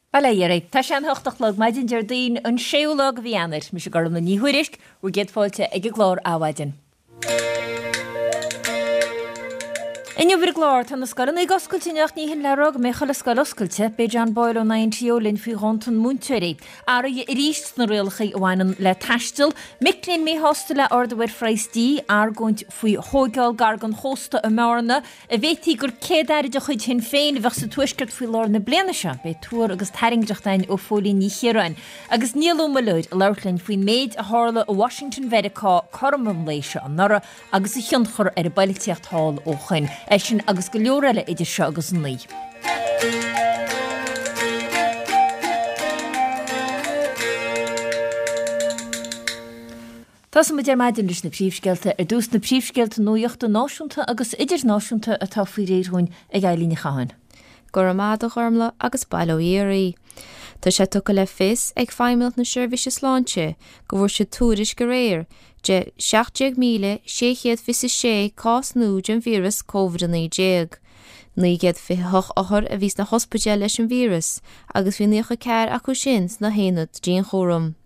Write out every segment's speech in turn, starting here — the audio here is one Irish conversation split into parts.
Bail ó Dhia oraibh. Tá sé an 8 a chlog maidin Déardaoin an 6ú lá de mhí Eanáir. Mise Gormlaith Ní Thuairisg, bhur gcéad fáilte ag an gclár Adhmhaidin. Inniu ar an gclár, tá na scoileanna ag oscailt inniu ach ní hin le rá go mbeidh chuile scoil oscailte. Beidh John Boyle ón INTO linn faoi dhántan múinteoirí. Athruithe arís sna rialacha a bhaineann le taisteal. Mic léinn míshásta le ardú ar phraghas dí. Argóint faoi thóigeáil gar don chósta i mBearna. An bhféadfaí gur Céad-Aire de chuid Shinn Féin a bheadh sa Tuaisceart faoi lár na bliana seo? Beidh tuar agus tairngreacht againn ó Phóilín Ní Chiaráin. Agus Niall Ó Muilleoir ag labhairt linn faoin méid a tharla i Washington Mheiriceá cothrom an lae seo anuraidh agus a thionchar ar an bpoilitíocht thall ó shoin. É sin agus go leor eile idir seo agus a 9. Tosóidh muid ar maidin leis na príomhscéalta. Ar dtús na príomhscéalta nuachta náisiúnta agus idirnáisiúnta atá faoi réir dhúinn ag Eilín Ní Chatháin. Go raibh maith agat a Ghormlaith agus bail ó Dhia oraibh. Tá sé tugtha le fios ag Feidhmeannacht na Seirbhíse Sláinte go bhfuair siad tuairisc aréir de 17,626 cás nua den víreas Covid-19. 928 othar a bhí sna hospidéil leis an víreas agus bhí 94 acu sin sna haonaid dianchúraim.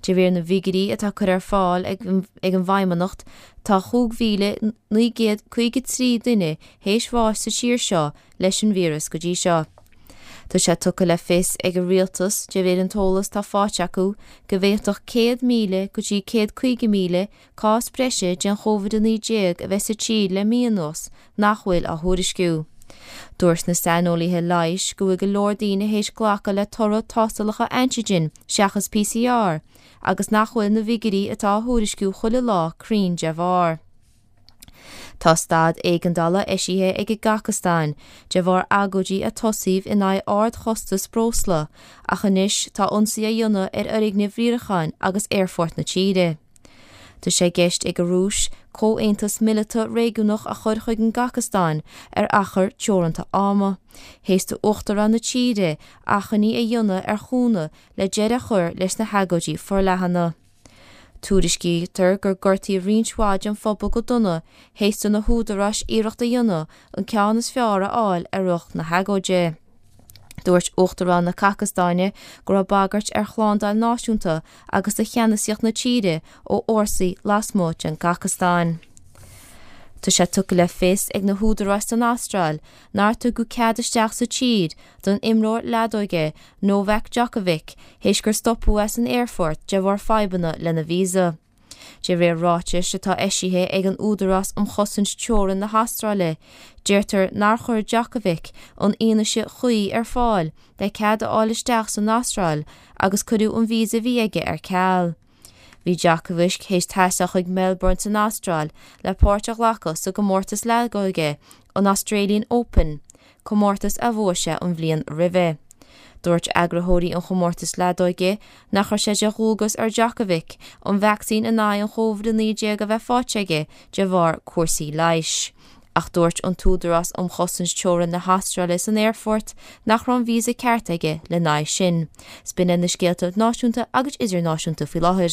De réir na bhfigiúirí atá curtha ar fáil ag an bhFeidhmeannacht, tá 5,953 duine théis bháis sa tír seo leis an víreas go dtí seo. Tá sé tugtha le fios ag an Rialtas, de réir an t-eolas atá faighte acu, go bhféadfadh 100,000 go dtí 150,000 cás breise den Chóvid-19 a bheith sa tír le mí anuas nach bhfuil á thuairisciú. Dúirt na saineolaithe leighis go bhfuil go leor daoine théis glacadh le toradh tástálacha antigen seachas PCR agus nach bhfuil na bhfigiúirí atá á thuairisciú chuile lá cruinn de bharr. Tá staid éigeandála eisithe ag an gCasacastáin de bharr agóidí a tosaíodh in aghaidh ardchostas breosla ach anois tá ionsaí á dhéanamh ar fhoirgnimh riaracháin agus aerfort na tíre. Tá sé i gceist ag an Rúis comhaontas mileata réigiúnach a chur chuig an gCasacastáin ar achar teoranta ama, théis d'uachtarán na tíre achainí a dhéanamh ar chúnamh le deireadh a chur leis na hagóidí forleathana. Tuairiscítear gur gortaíodh roinnt mhaith den phobal go dona théis do na húdaráis iarracht a dhéanamh an ceann is fearr a fháil ar lucht na hagóide. Dúirt Uachtarán na Casacastáine go raibh bagairt ar shlándáil náisiúnta agus do cheannasaíocht na tíre ó fhórsaí lasmuigh den gCasacastáin. Tá sé tugtha le fios ag na húdaráis san Astráil nár tugadh cead isteach sa tír don imreoir leadóige Novak Djokovic théis gur stopadh é san aerfort de bharr fadhbanna lena visa. De réir ráitis atá eisithe ag an Údarás um Chosaint Teorann na hAstráile, deirtear nár chuir Djokovic an fhianaise chuí ar fáil le cead a fháil isteach san Astráil agus cuireadh an visa a bhí aige ar ceal. Bhí Djokovic théis taisteal chuig Melbourne san Astráil le páirt a ghlacadh sa gcomórtas leadóige, an Australian Open, comórtas a bhuaigh sé an bhliain roimhe. Dúirt eagraitheoirí an chomórtais leadóige nach raibh sé de dhualgas ar Djokovic an vacsaín in aghaidh an Chóvid-19 a bheith faighte aige de bharr cúrsaí leighis. Ach dúirt an tÚdarás um Chosaint Teorann na hAstráile san aerfort nach raibh an víosa ceart aige lena aghaidh sin. 'S b'in iad na scéalta náisiúnta agus idirnáisiúnta faoi láthair.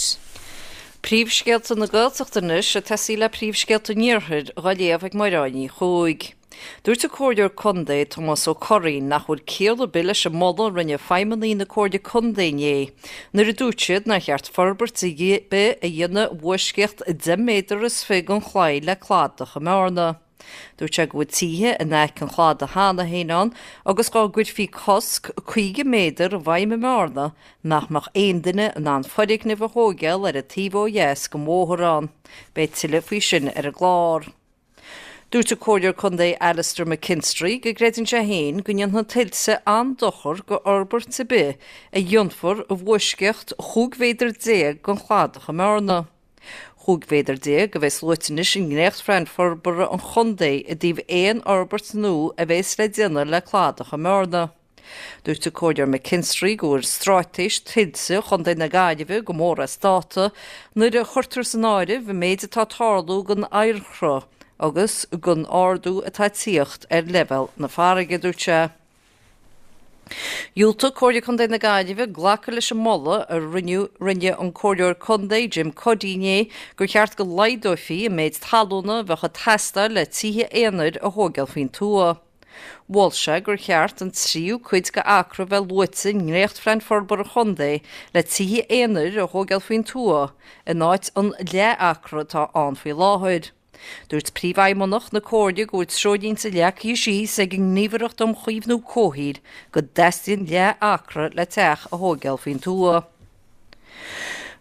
Príomhscéalta na Gaeltachta anois ag tosaí le príomhscéalta an Iarthair dhá léamh ag Máire Ní Chuaig. Dúirt an Comhairleoir Contae Tomás Ó Curraoin nach bhfuil ciall ar bith leis an moladh a rinne feidhmeannaigh na Comhairle Contae inné nuair a dúirt siad nár cheart forbairt ar bith a dhéanamh i bhfoisceacht 10 méadar is 20 den chlaí le cladach i mBearna. Dúirt sé go bhfuil tithe in aice an chladaigh cheana féin ann agus dá gcuirfí cosc 50 méadar i bhfeidhm i mBearna nach mbeadh aon duine in ann foirgneamh a thóigeáil ar an taobh ó dheas den bhóthar ann. Beidh tuilleadh faoi sin ar an gclár. Dúirt an Comhairleoir Contae Alastair McKinstry go gcreideann sé féin go ndéanfaidh tuilte an-dochar go fhorbairt ar bith a dhéanfar i bhfoisceacht 15 mhéadar den chladach i mBearna. 15 mhéadar a bheas luaite anois i ndréachtphlean forbartha an chontae i dtaobh aon fhorbairt nua a bheas le déanamh le cladach i mBearna. Dúirt an Comhairleoir McKinstry go bhfuil straitéis tuilte Chontae na Gaillimhe go mór as dáta nuair a chuirtear san áireamh an méid atá ag tarlú don oighearshruth agus don ardú atá ag tíocht ar leibhéal na farraige, dúirt sé. Dhiúltaigh Comhairle Contae na Gaillimhe glacadh leis an moladh a rinne rinne an Comhairleoir Contae Jim Cuddy inné gur cheart go laghdófaí an méid talúna a bheadh ag teastáil le tithe aonair a thóigeáil faoin tuath. Mhol sé gur cheart an tríú cuid de acra a bheith luaite i ndréachtphlean forbartha an chontae le tithe aonair a thóigeáil faoin tuath in áit an leath-acra atá ann faoi láthair. Dúirt Príomhfheidhmeannach na Comhairle go bhfuil treoirlínte leagtha síos ag an nGníomhaireacht um Chaomhnú Comhshaoil go dteastaíonn leath-acra le teach a thóigeáil faoin tuath.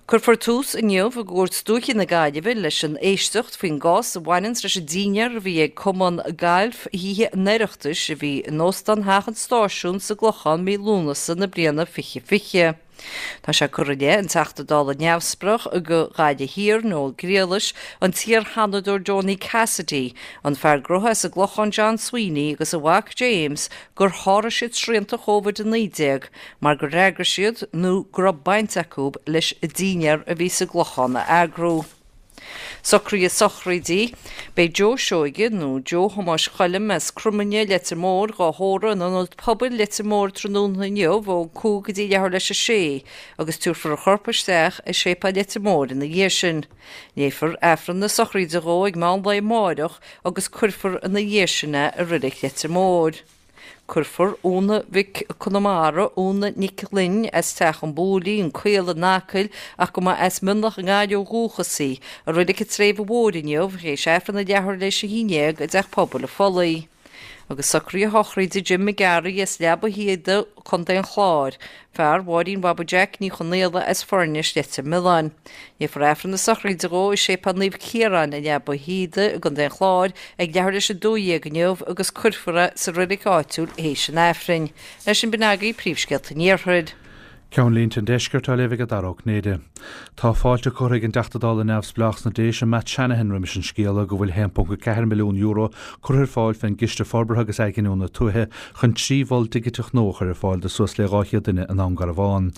Cuirfear tús inniu i gCúirt Dúiche na Gaillimhe leis an éisteacht faoin gcás a bhaineanns leis an dínnéar a bhí ag Cumann Gailf Thithe an Oireachtais a bhí in Óstán Theach an Stáisiúin sa gClochán mí Lúnasa na bliana 2020. Tá sé curtha i leith an Teachta Dála neamhspleách do Ghaillimh Thiar, Noel Griallais, an t-iar-Sheanadóir Donie Cassidy, an fear gnótha as an gClochán John Sweeney agus a mhac James gur sháraigh siad srianta Covid-19 mar gur fhreagair siad nó go raibh baint acu leis an dínnéar a bhí sa gClochán a eagrú. Socruithe sochraide. Beidh Joe Seoige, nó Joe Thomáis Choilm as Cromaine, Leitir Móir, dhá thórramh in Ionad Pobail Leitir Móir tráthnóna inniu ó 5 go dtí leathuair leis a sé agus tabharfar a chorp isteach i Séipéal Leitir Móir ina dhiaidh sin. Léifear Aifreann na sochraide dhó ag meán lae amáireach agus cuirfear ina dhiaidh sin é i Reilig Leitir Móir. Cuirfear Úna Mhic Conamara, Úna Nic Fhloinn, as Teach an Bhuailí, An Caol in Acaill, ach go mba as Mionlach i nGaillimh ó dhúchas í, i Reilig an tSléibhe Mhóir inniu, théis Aifreann a leathuair leis a 11 i dTeach Pobail an Phollaigh. Agus socruithe sochraide Jim McGarry as Leaba Shíoda, Co. an Chláir, Fear Mháirín Bhaba Jack Ní Chonaola as Foirnis, Leitir Mealláin. Léifear Aifreann na sochraide dhó i Séipéal Naomh Ciarán i Leaba Shíoda i gContae an Chláir ag leathuair leis 12 inniu agus cuirfear é sa reilig áitiúil théis an Aifrinn. Leis sin b'in agaibh príomhscéalta an Iarthair. Ceannlínte an Deiscirt á léamh ag Dara Ó Cinnéide. Tá fáilte curtha ag an dTeachta Dála neamhspleách sna Déise, Matt Shanahan roimis an scéala go bhfuil €1.4 milliún curtha ar fáil fén gCiste Forbartha agus Athghiniúna Tuaithe chun 3 mhol digiteach nua a chur ar fáil do suas le 200 duine i nDún Garbhán.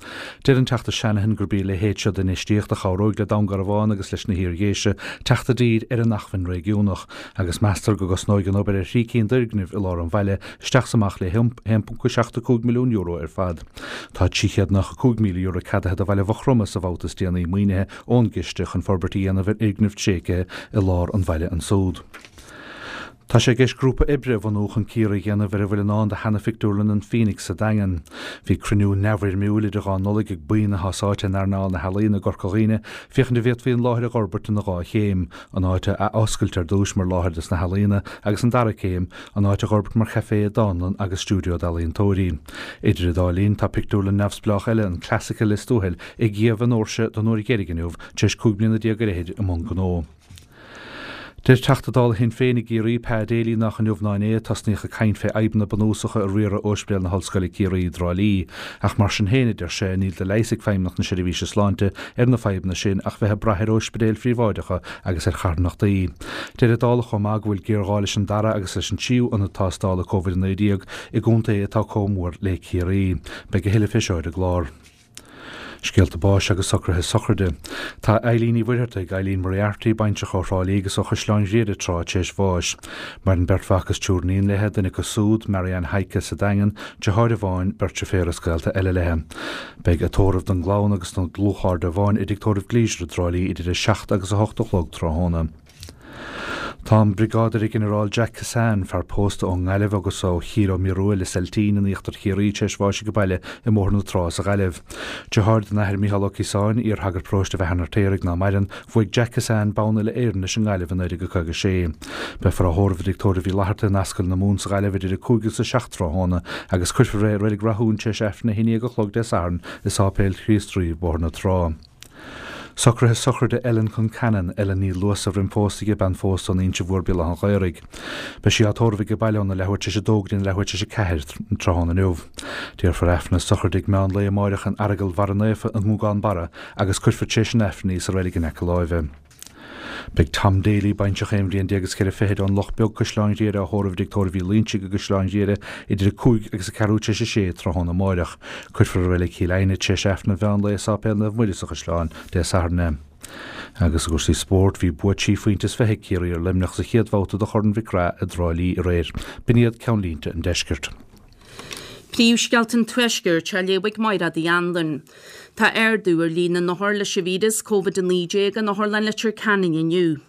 Deir an Teachta Shanahan gurb í a leithéid seo d'infheistíocht a chabhróidh le Dún Garbhán agus leis na hIar-Dhéise teacht i dtír ar an acmhainn réigiúnach agus meastar go gcosnóidh an obair ar thrí cinn d'fhoirgnimh i lár an bhaile isteach 's amach le €1.75 milliún ar fad. Tá €395,000 ceadaithe do bhaile Mhaigh Chromtha sa bhabhta is déanaí maoinithe ón gciste chun forbairt a dhéanamh ar fhoirgneamh tréigthe i lár an bhaile ansúd. Tá sé i gceist grúpa oibre a bhunú chun cíoradh a dhéanamh ar a bhfuil i ndán do sheana-phictiúrlann an Phoenix sa Daingean. Bhí cruinniú neamhfhoirmiúil idir dhá Nollaig ag buíon atá sáite in earnáil na healaíona i gCorca Dhuibhne féachaint an bhféadfaí an láthair a dh'fhorbairt ina dhá chéim, an áit a athoscailt ar dtúis mar láthair dos na healaíona agus an dara céim, an áit a dh'fhorbairt mar chaifé, dánlann agus stiúideo d'ealaíontóirí. Idir an dá linn, tá pictiúrlann neamhspleách eile, an Classic i Lios Tuathail, ag iamh a ndoirse don uair dheiridh inniu, tar éis 15 bliana ar fhichid i mbun gnó. Deir Teachta Dála Shinn Féin i gCiarraí, Pa Daly, nach inniu ná inné a tosnaíodh ag caint fé fhadhbanna bunúsacha i riaradh Ospidéal na hOllscoile Ciarraí i dTrá Lí. Ach mar sin féin, a deir sé, níl de leigheas ag Feidhmeannacht na Seirbhíse Sláinte ar na fadhbanna sin ach bheith ag brath ar ospidéil phríobháideacha agus ar charthanachtaí. Deir an Dálach chomh maith go bhfuil géarghá leis an dara agus leis an tríú ionad tástála Covid-19 i gcontae atá comh mór le Ciarraí. Beidh a thuilleadh fé seo ar an gclár. Scéalta báis agus socruithe sochraide. Tá Eileen Ní Mhuircheartaigh, Eileen Moriarty, baintreach ó Thrá Lí agus ó Chaisleán Ghriaire tráth, tar éis bháis. Maireann beirt mhac is triúr iníon léi, duine acu súd, Marianne Heike sa Daingean, deartháir amháin, beirt deirféar is gaolta eile léi. Beidh a tórramh don gclann agus don dlúthchairde amháin i dTigh Tórraimh Gleisure i dTrá Lí idir 7 agus 8 a chlog tráthnóna. Tá an Briogáidire-Ghinearál Jack Kissane, fear pósta ón nGaillimh agus ó Chill Ó Mhiorua, Lios Eiltín in íochtar Chiarraí, tar éis bháis age baile i mBóthar na Trá sa Ghaillimh. Deartháir don Athair Micheál Ó Ciosáin, iar-shagart paróiste Bheatha an Fheirtéaraigh ná maireann, Bhuaigh Jack Kissane bonn uile-Éireann leis an nGaillimh i 1956. Beifear á thórramh i dTigh Tórraimh Uí Fhlatharta in Ascaill na Mumhan sa Ghaillimh idir 5 agus 7 tráthnóna agus cuirfear é i Reilig Rathún tar éis Aifreann 11 a chlog Dé Sathairn i Sáipéal Chríost Rí, Bóthar na Trá. Socruithe sochraide Ellen Concannon, Ellen Ní Luasa roim phósadh di, bean phósta ón Inse Mhór, Béal Átha an Ghaorthaidh. Beidh sí á tórramh age baile óna leathuair tar éis a dó go dtí leathuair tar éis a 4 tráthnóna inniu. Déarfar Aifreann na sochraide ag meán lae amáireach in Aireagal Bharra Naofa i nGúgán Barra agus cuirfear tar éis an Aifrinn í sa reilig in aice láimhe. Beidh Tom Daly, baintreach aon bhliain déag is ceithre fichid ón Loch Beag, Caisleán Ghriaire á thórramh i dTigh Tórraimh Uí Loinsigh i gCaisleán Ghriaire idir 5 agus a ceathrú tar éis a sé tráthnóna amáireach. Cuirfear i Reilig Chill Aidhne tar éis Aifreann an mheán lae i Sáipéal Naomh Muire sa Chaisleán Dé Sathairn é. Agus i gcúrsaí spóirt, bhí bua trí phointe is fiche ag Ciarraí ar Luimneach sa chéad bhabhta de Chorn Mhic Craith i dTrá Lí aréir. B'in iad ceannlínte an deiscirt. Príomhscéalta an Tuaiscirt á léamh ag Mairéad Uí Anluain. Tá ardú ar líon na n-othar leis an víreas Covid-19 in Otharlann Leitir Ceanainn inniu.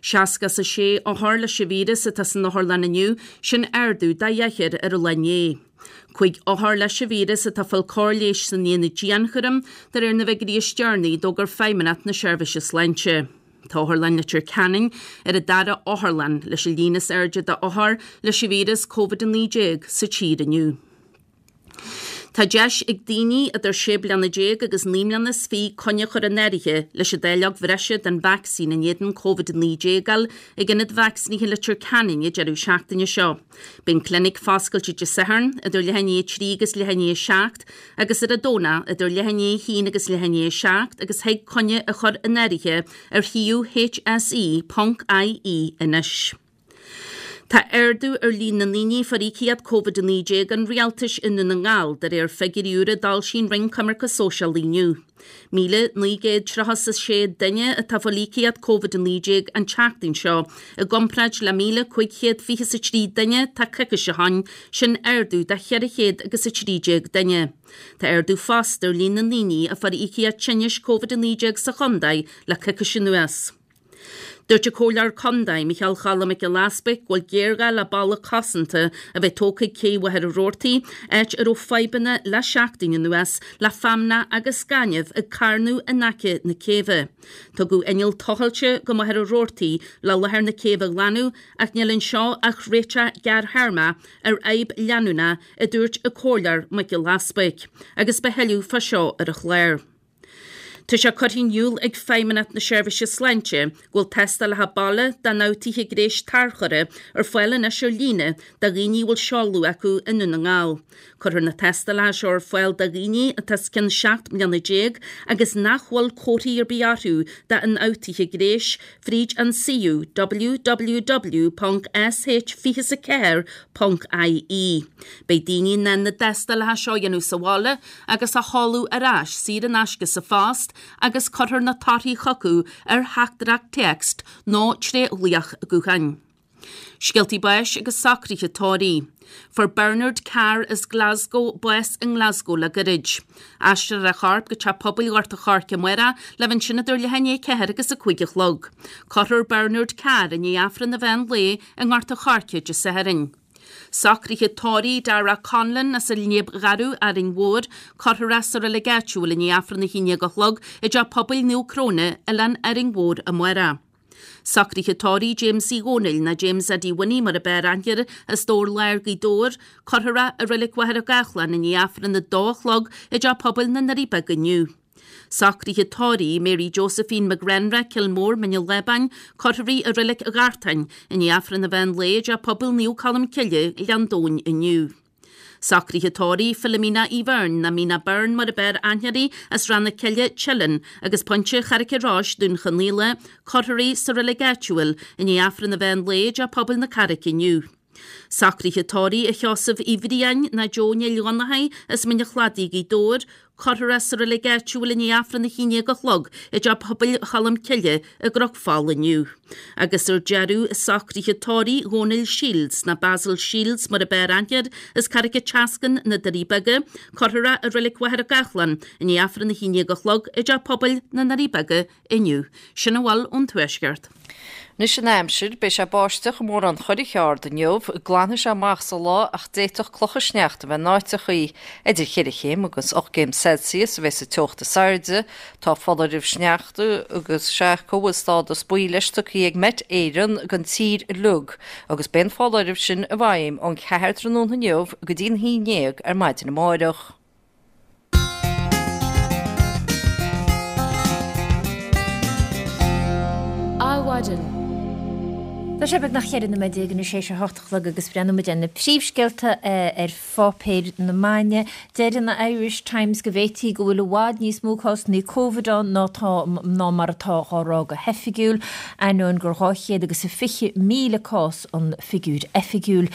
66 othar leis an víreas atá san otharlann inniu, sin ardú de dheichniúr ar an lá inné. 5 othar leis an víreas atá ag fáil cóir leighis san aonad dianchúraim, de réir na bhfigiúirí is deireanaí a d'fhógair Feidhmeannacht na Seirbhíse Sláinte. Tá Otharlann Leitir Ceanainn ar an dara otharlann leis an líon is airde d'othair leis an víreas Covid-19 sa tír inniu. Tá deis ag daoine idir 16 bliana agus 29 mbliana coinne a chur in áirithe leis an dáileog bhreise den vacsaín in éadan Covid-19 a fháil ag Ionad Vacsaínithe Leitir Ceanainn an deireadh seachtaine seo. Beidh an clinic foscailte Dé Sathairn idir leath i ndiaidh 3 agus leath i ndiaidh 7 agus ar an Domhnach idir leath i ndiaidh 1 agus leath i ndiaidh 7 agus thig coinne a chur in áirithe ar shuíomh hse.ie anois. Tá ardú ar líon na ndaoine a fuair íocaíocht Covid-19 an Rialtais i nDún na nGall, de réir figiúirí úra a d'fhoilsigh an Roinn Coimirce Sóisialaí inniu. 1,936 duine atá ag fáil íocaíocht Covid-19 an tseachtain seo, i gcomparáid le 1,523 duine tá coicís ó shin, sin ardú de 413 duine. Tá ardú fosta ar líon na ndaoine a fuair íocaíocht tinnis Covid-19 sa chontae le coicís anuas. Dúirt an Comhairleoir Contae, Micheál Choilm Mac Giolla Easbuig, go bhfuil géarghá le balla cosanta a bheith tógtha ag cé Mhachaire Rabhartaigh, áit a raibh fadhbanna le seachtain anuas le feamnach agus gaineamh ag carnadh in aice na céibhe. Tugadh inneall tochailte go Machaire Rabhartaigh le láthair na céibhe a ghlanadh ach níl anseo ach réiteach gearrthéarmach ar fhadhb leanúnach, a dúirt an Comhairleoir Mac Giolla Easbuig, agus beidh tuilleadh fá seo ar an chlár. Tá sé curtha in iúl ag Feidhmeannacht na Seirbhíse Sláinte go bhfuil tástálacha baile d'ionfhabhtuithe gnéis tarchurtha ar fáil anois ar líne do dhaoine a bhfuil seoladh acu i nDún na nGall. Cuirfear na tástálacha seo ar fáil do dhaoine atá os cionn 17 mbliana agus nach bhfuil comharthaí ar bith orthu d'ionfhabhtuithe gnéis fríd an suíomh www.sh24.ie. Beidh daoine in ann na tástálacha seo a dhéanamh sa bhaile agus a sheoladh ar ais saor in aisce sa phost agus cuirfear na torthaí chucu ar theachtaireacht téacs nó tré ghlaoch gutháin. Scéaltaí báis agus socruithe tórraimh. Fuair Bernard Carr as Glasgow bás i nGlasgow le gairid. Aistreofar a chorp go Teach Pobail Ghort a' Choirce amárach le bheith ansin idir leath i ndiaidh a 4 agus a 5 a chlog. Cuirfear Bernard Carr i ndiaidh Aifreann an mheán lae i nGort a' Choirce Dé Sathairn. Socruithe tórraimh Dara Conlon as an Léib Gharbh, Árainn Mhór, cuirfear é sa reilig áitiúil i ndiaidh Aifreann a 11 a chlog i dTeach Pobail Naomh Cróine, Oileán Árainn Mhór amárach. Socruithe tórraimh James Uí Dhónaill, ná James Eddie Winnie mar ab fhearr aithne air, as Dobhar Láir, Gaoth Dobhair, cuirfear é i reilig Mhachaire Gathlán i ndiaidh Aifreann a dó a chlog i dTeach Pobail na nDoirí Beaga inniu. Socruithe tórraimh Mary Josephine McGrenra, Cill Mór, Mín an Lábáin, cuirfear í i Reilig Ghartáin i ndiaidh Aifreann an mheán lae i dTeach Pobail Naomh Colm Cille, Gleann Domhain inniu. Socruithe tórraimh Philomena Uí Bheirn, ná Mina Byrne mar ab fhearr aithne uirthi, as Ráth na Cille, Teileann, agus Pointe Charraic an Rois, Dún Chonaill, cuirfear í sa reilig áitiúil i ndiaidh Aifreann an mheán lae i dTeach Pobail na Carraice inniu. Socruithe tórraimh a Sheosaimh Uí Bhriain, ná Joe Néill Dhonnchaidh, as Mín an Chladaigh, Gaoth Dobhair, cuirfear é sa reilig áitiúil i ndiaidh Aifreann a 11 a chlog i dTeach Pobail Cholm Cille i gCnoc Fola inniu. Agus ar deireadh, socruithe tórraimh Dhónaill Shields, ná Basil Shields mar ab fhearr aithne air, as Carraig an tSeascainn, Na Doirí Beaga, cuirfear é i reilig Mhachaire Gathlán i ndiaidh Aifreann a 11 a chlog i dTeach Pobail na nDoirí Beaga inniu. Sin a bhfuil ón Tuaisceart. Anois an aimsir, beidh sé ag báisteach i mórán Churraigh Ard inniu, glanfaidh sé amach sa lá ach d'fhéadfadh clocha sneachta a bheith in áiteachaí. Idir cheithre chéim agus 8 gcéim Celsius a bheas an teocht is airde. Tá foláireamh sneachta agus sé acu a bhfuil stádas buí leis tugtha ag Met Éireann don tír uilig agus beidh an foláireamh sin i bhfeidhm ón cheathair tráthnóna inniu go dtí an haon ndéag ar maidin amáireach. Adhmhaidin. Tá sé beagnach 14 nóiméad anois théis a hocht a chlog agus breathnóidh muid ar na príomhscéalta ar pháipéir na maidne. Deir an Irish Times go bhféadfaí go bhfuil i bhfad níos mó cásanna Covid ann ná tá ná mar atá á rá go hoifigiúil, ainneoin gur 220,000 cás an figiúr oifigiúil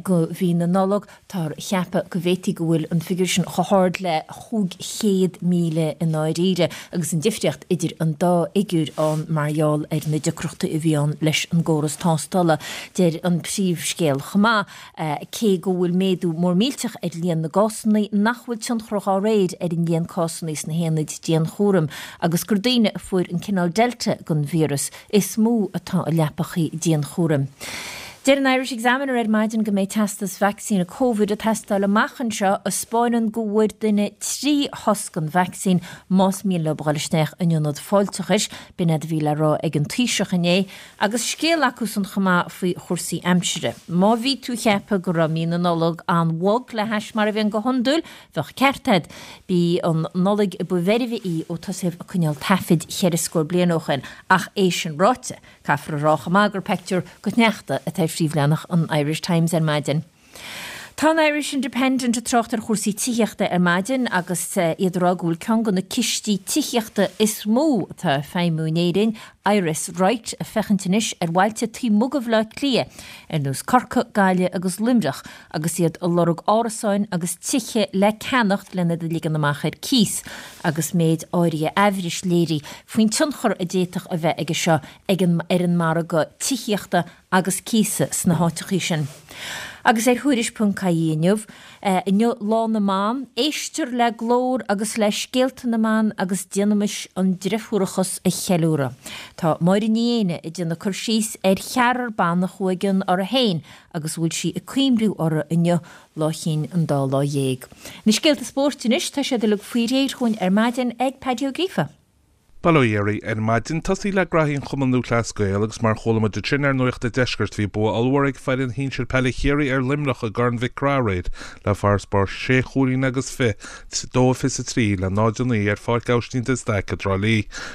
go mhí na Nollag. Táthar a cheapadh go bhféadfaí go bhfuil an figiúr sin chomh hard le 500,000 i ndáiríre agus an difríocht idir an dá fhigiúr ann mar gheall ar na deacrachtaí a bhí ann leis an gcóras. tástála. Deir an príomhscéal chomh maith, cé go bhfuil méadú mór millteach ar líon na gcásanna, nach bhfuil tionchar dhá réir ar an líon cásanna sna haonaid dianchúraim agus gur daoine a fuair an cineál Delta den víreas is mó atá i leapachaí dianchúraim. Deir an Irish Examiner ar maidin go mbeidh teastas vacsaíne Covid ag teastáil amach anseo a 'spáineann go bhfuair duine 3 shos den vacsaín más mian leo a dhul isteach in ionad fáilteachais. B'in é a bhí le rá ag an Taoiseach inné agus scéal acusan chomh maith faoi chúrsaí aimsire. Má bhí tú ag ceapadh go raibh mí na Nollag an-bhog le hais mar a bhíonn go hiondúil, bheadh ceart agat. B'í an Nollaig ba mheirbhe í ó tosaíodh ag coinneáil taifid cheithre scór bliain ó shin ach é sin ráite, Caithfear a rá chomh maith gur peictiúr go sneachta atá ar phríomhleathanach an Irish Times ar maidin. Tá an Irish Independent ag trácht ar chúrsaí tithíochta ar maidin agus iad ag rá go bhfuil ceann de na cistí tithíochta is mó atá ag feidhmiú in Éirinn, Iris Right, ag féachaint anois ar bhailte taobh amuigh de Bhaile Átha Cliath, ar nós Corcaigh, Gaillimh agus Luimneach, agus iad ag lorg árasáin agus tithe le ceannacht lena iad a ligean amach ar cíos, agus méid áirithe aimhris léirithe faoin tionchar a d'fhéadfadh a bheith aige seo ag an ar an margadh tithíochta agus cíosa sna háiteachaí sin. Agus ar Thuairisc ponc ie inniu, inniu Lá na mBan, éistear le glór agus le scéalta na mban agus déanaimis an driofúrachas a cheiliúradh. Tá Máire Ní Éanna ag déanamh cur síos ar cheathrar ban a chuaigh i gcion orthu féin agus a bhfuil sí ag cuimhniú orthu inniu, Lá Chinn an Dá Lá Dhéag. Na scéalta spóirt anois, tá siad uilig faoi réir chugainn ar maidin ag Paddy Ó Gríofa. Bail ó Dhia oraibh ar maidin. Tosaí le graithí an Chumann Lúthchleas Gael agus mar chuala muid ansin ar Nuacht an Deiscirt bhí bua ollmhór ag foireann shinsir peile Chiarraí ar Luimneach i gCorn Mhic Craith aréir le farasbarr sé chúilín agus fi, 2-23 le 0-9 ar Pháirc Aibhistín de Staic i dTrá Lí.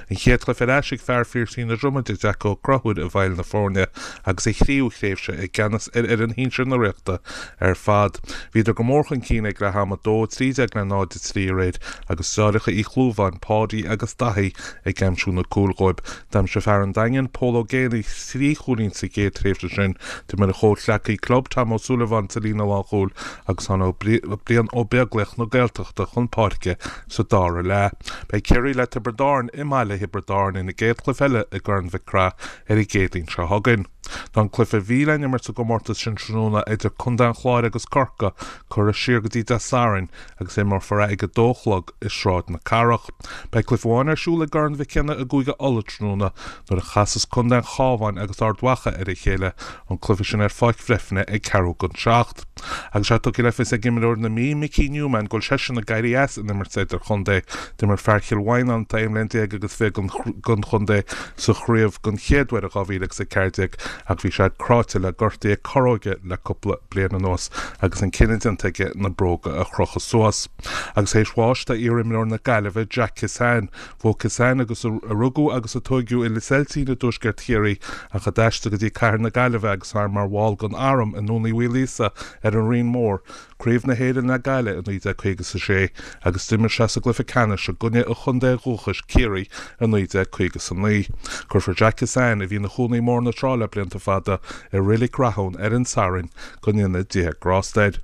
An chéad chluiche ar ais ag fear Phiarsaigh na Dromoda, Jack Ó Conchúir i bhfeighil na foirne agus a thríú thréimhse i gceannas ar fhoireann shinsir na Ríochta ar fad. Bhíodar go mór chun cinn ag leath ama, 2-13 le 0-3 aréir agus deartháireacha Uí Chlúmháin, Páidí agus Daithí ag aimsiú na cúil dhóibh. D'aimsigh fear an Daingin, Pól Ó Géibheannaigh, thrí chúilín sa gcéad tréimhse sin. D'imir a chomhghleacaí club, Tom Ó Súilleabháin, sa líne lánchúil agus tháinig Brian Ó Beaglaoich na Gaeltachta chun páirce sa dara leath. Beidh Ciarraí le Tiobraid Árann i mbaile Thiobraid Árann ina gcéad chluiche eile i gCorn Mhic Craith ar an gCéadaoin seo chugainn. Tá an cluiche a bhí le n-imirt sa gcomórtas sin tráthnóna idir Contae an Chláir agus Corcaigh curtha siar go dtí Dé Sathairn agus imreofar é ag a dó a chlog i Sráid na Cathrach. Beidh cluiche amháin ar siúl i gCorn Mhic Cionnaith i gCúige Uladh tráthnóna nuair a chasas Contae an Chabháin agus Ard Mhacha ar a chéile, an cluiche sin ar Pháirc Bhreifne ag ceathrú don seacht. Agus é tugtha le fios ag imreoir na Mí, Mickey Newman, go bhfuil seisean ag éirí as an imirt idirchontae. D'imir fear Chill Mhaighneáin, atá 11 mbliana agus 20 don chontae sa chraobh den chéad uair in 2014 ach bhí sé cráite le gortuithe corróige le cúpla bliain anuas agus an cinneadh déanta aige na bróga a chrochadh suas. Agus théis bháis do iar-imreoir na Gaillimhe, Jack Kissane, Bhuaigh Kissane, agus a rugadh agus a tóigeadh i Lios Eiltín i dtuaisceart Chiarraí ach a d'aistrigh go dtí cathair na Gaillimhe agus é mar bhall den arm i nDún Uí Mhaoilíosa ar an Rinn Mhór, Craobh na hÉireann le Gaillimh i 1956 agus d'imir sé sa gcluiche ceannais i gcoinne a chontae dhúchais, Ciarraí, i 1959. Cuirfear Jack Kissane, a bhí ina chónaí i mBóthar na Trá le blianta fada, i Reilig Rathún ar an Satharn go ndéana Dia grásta air.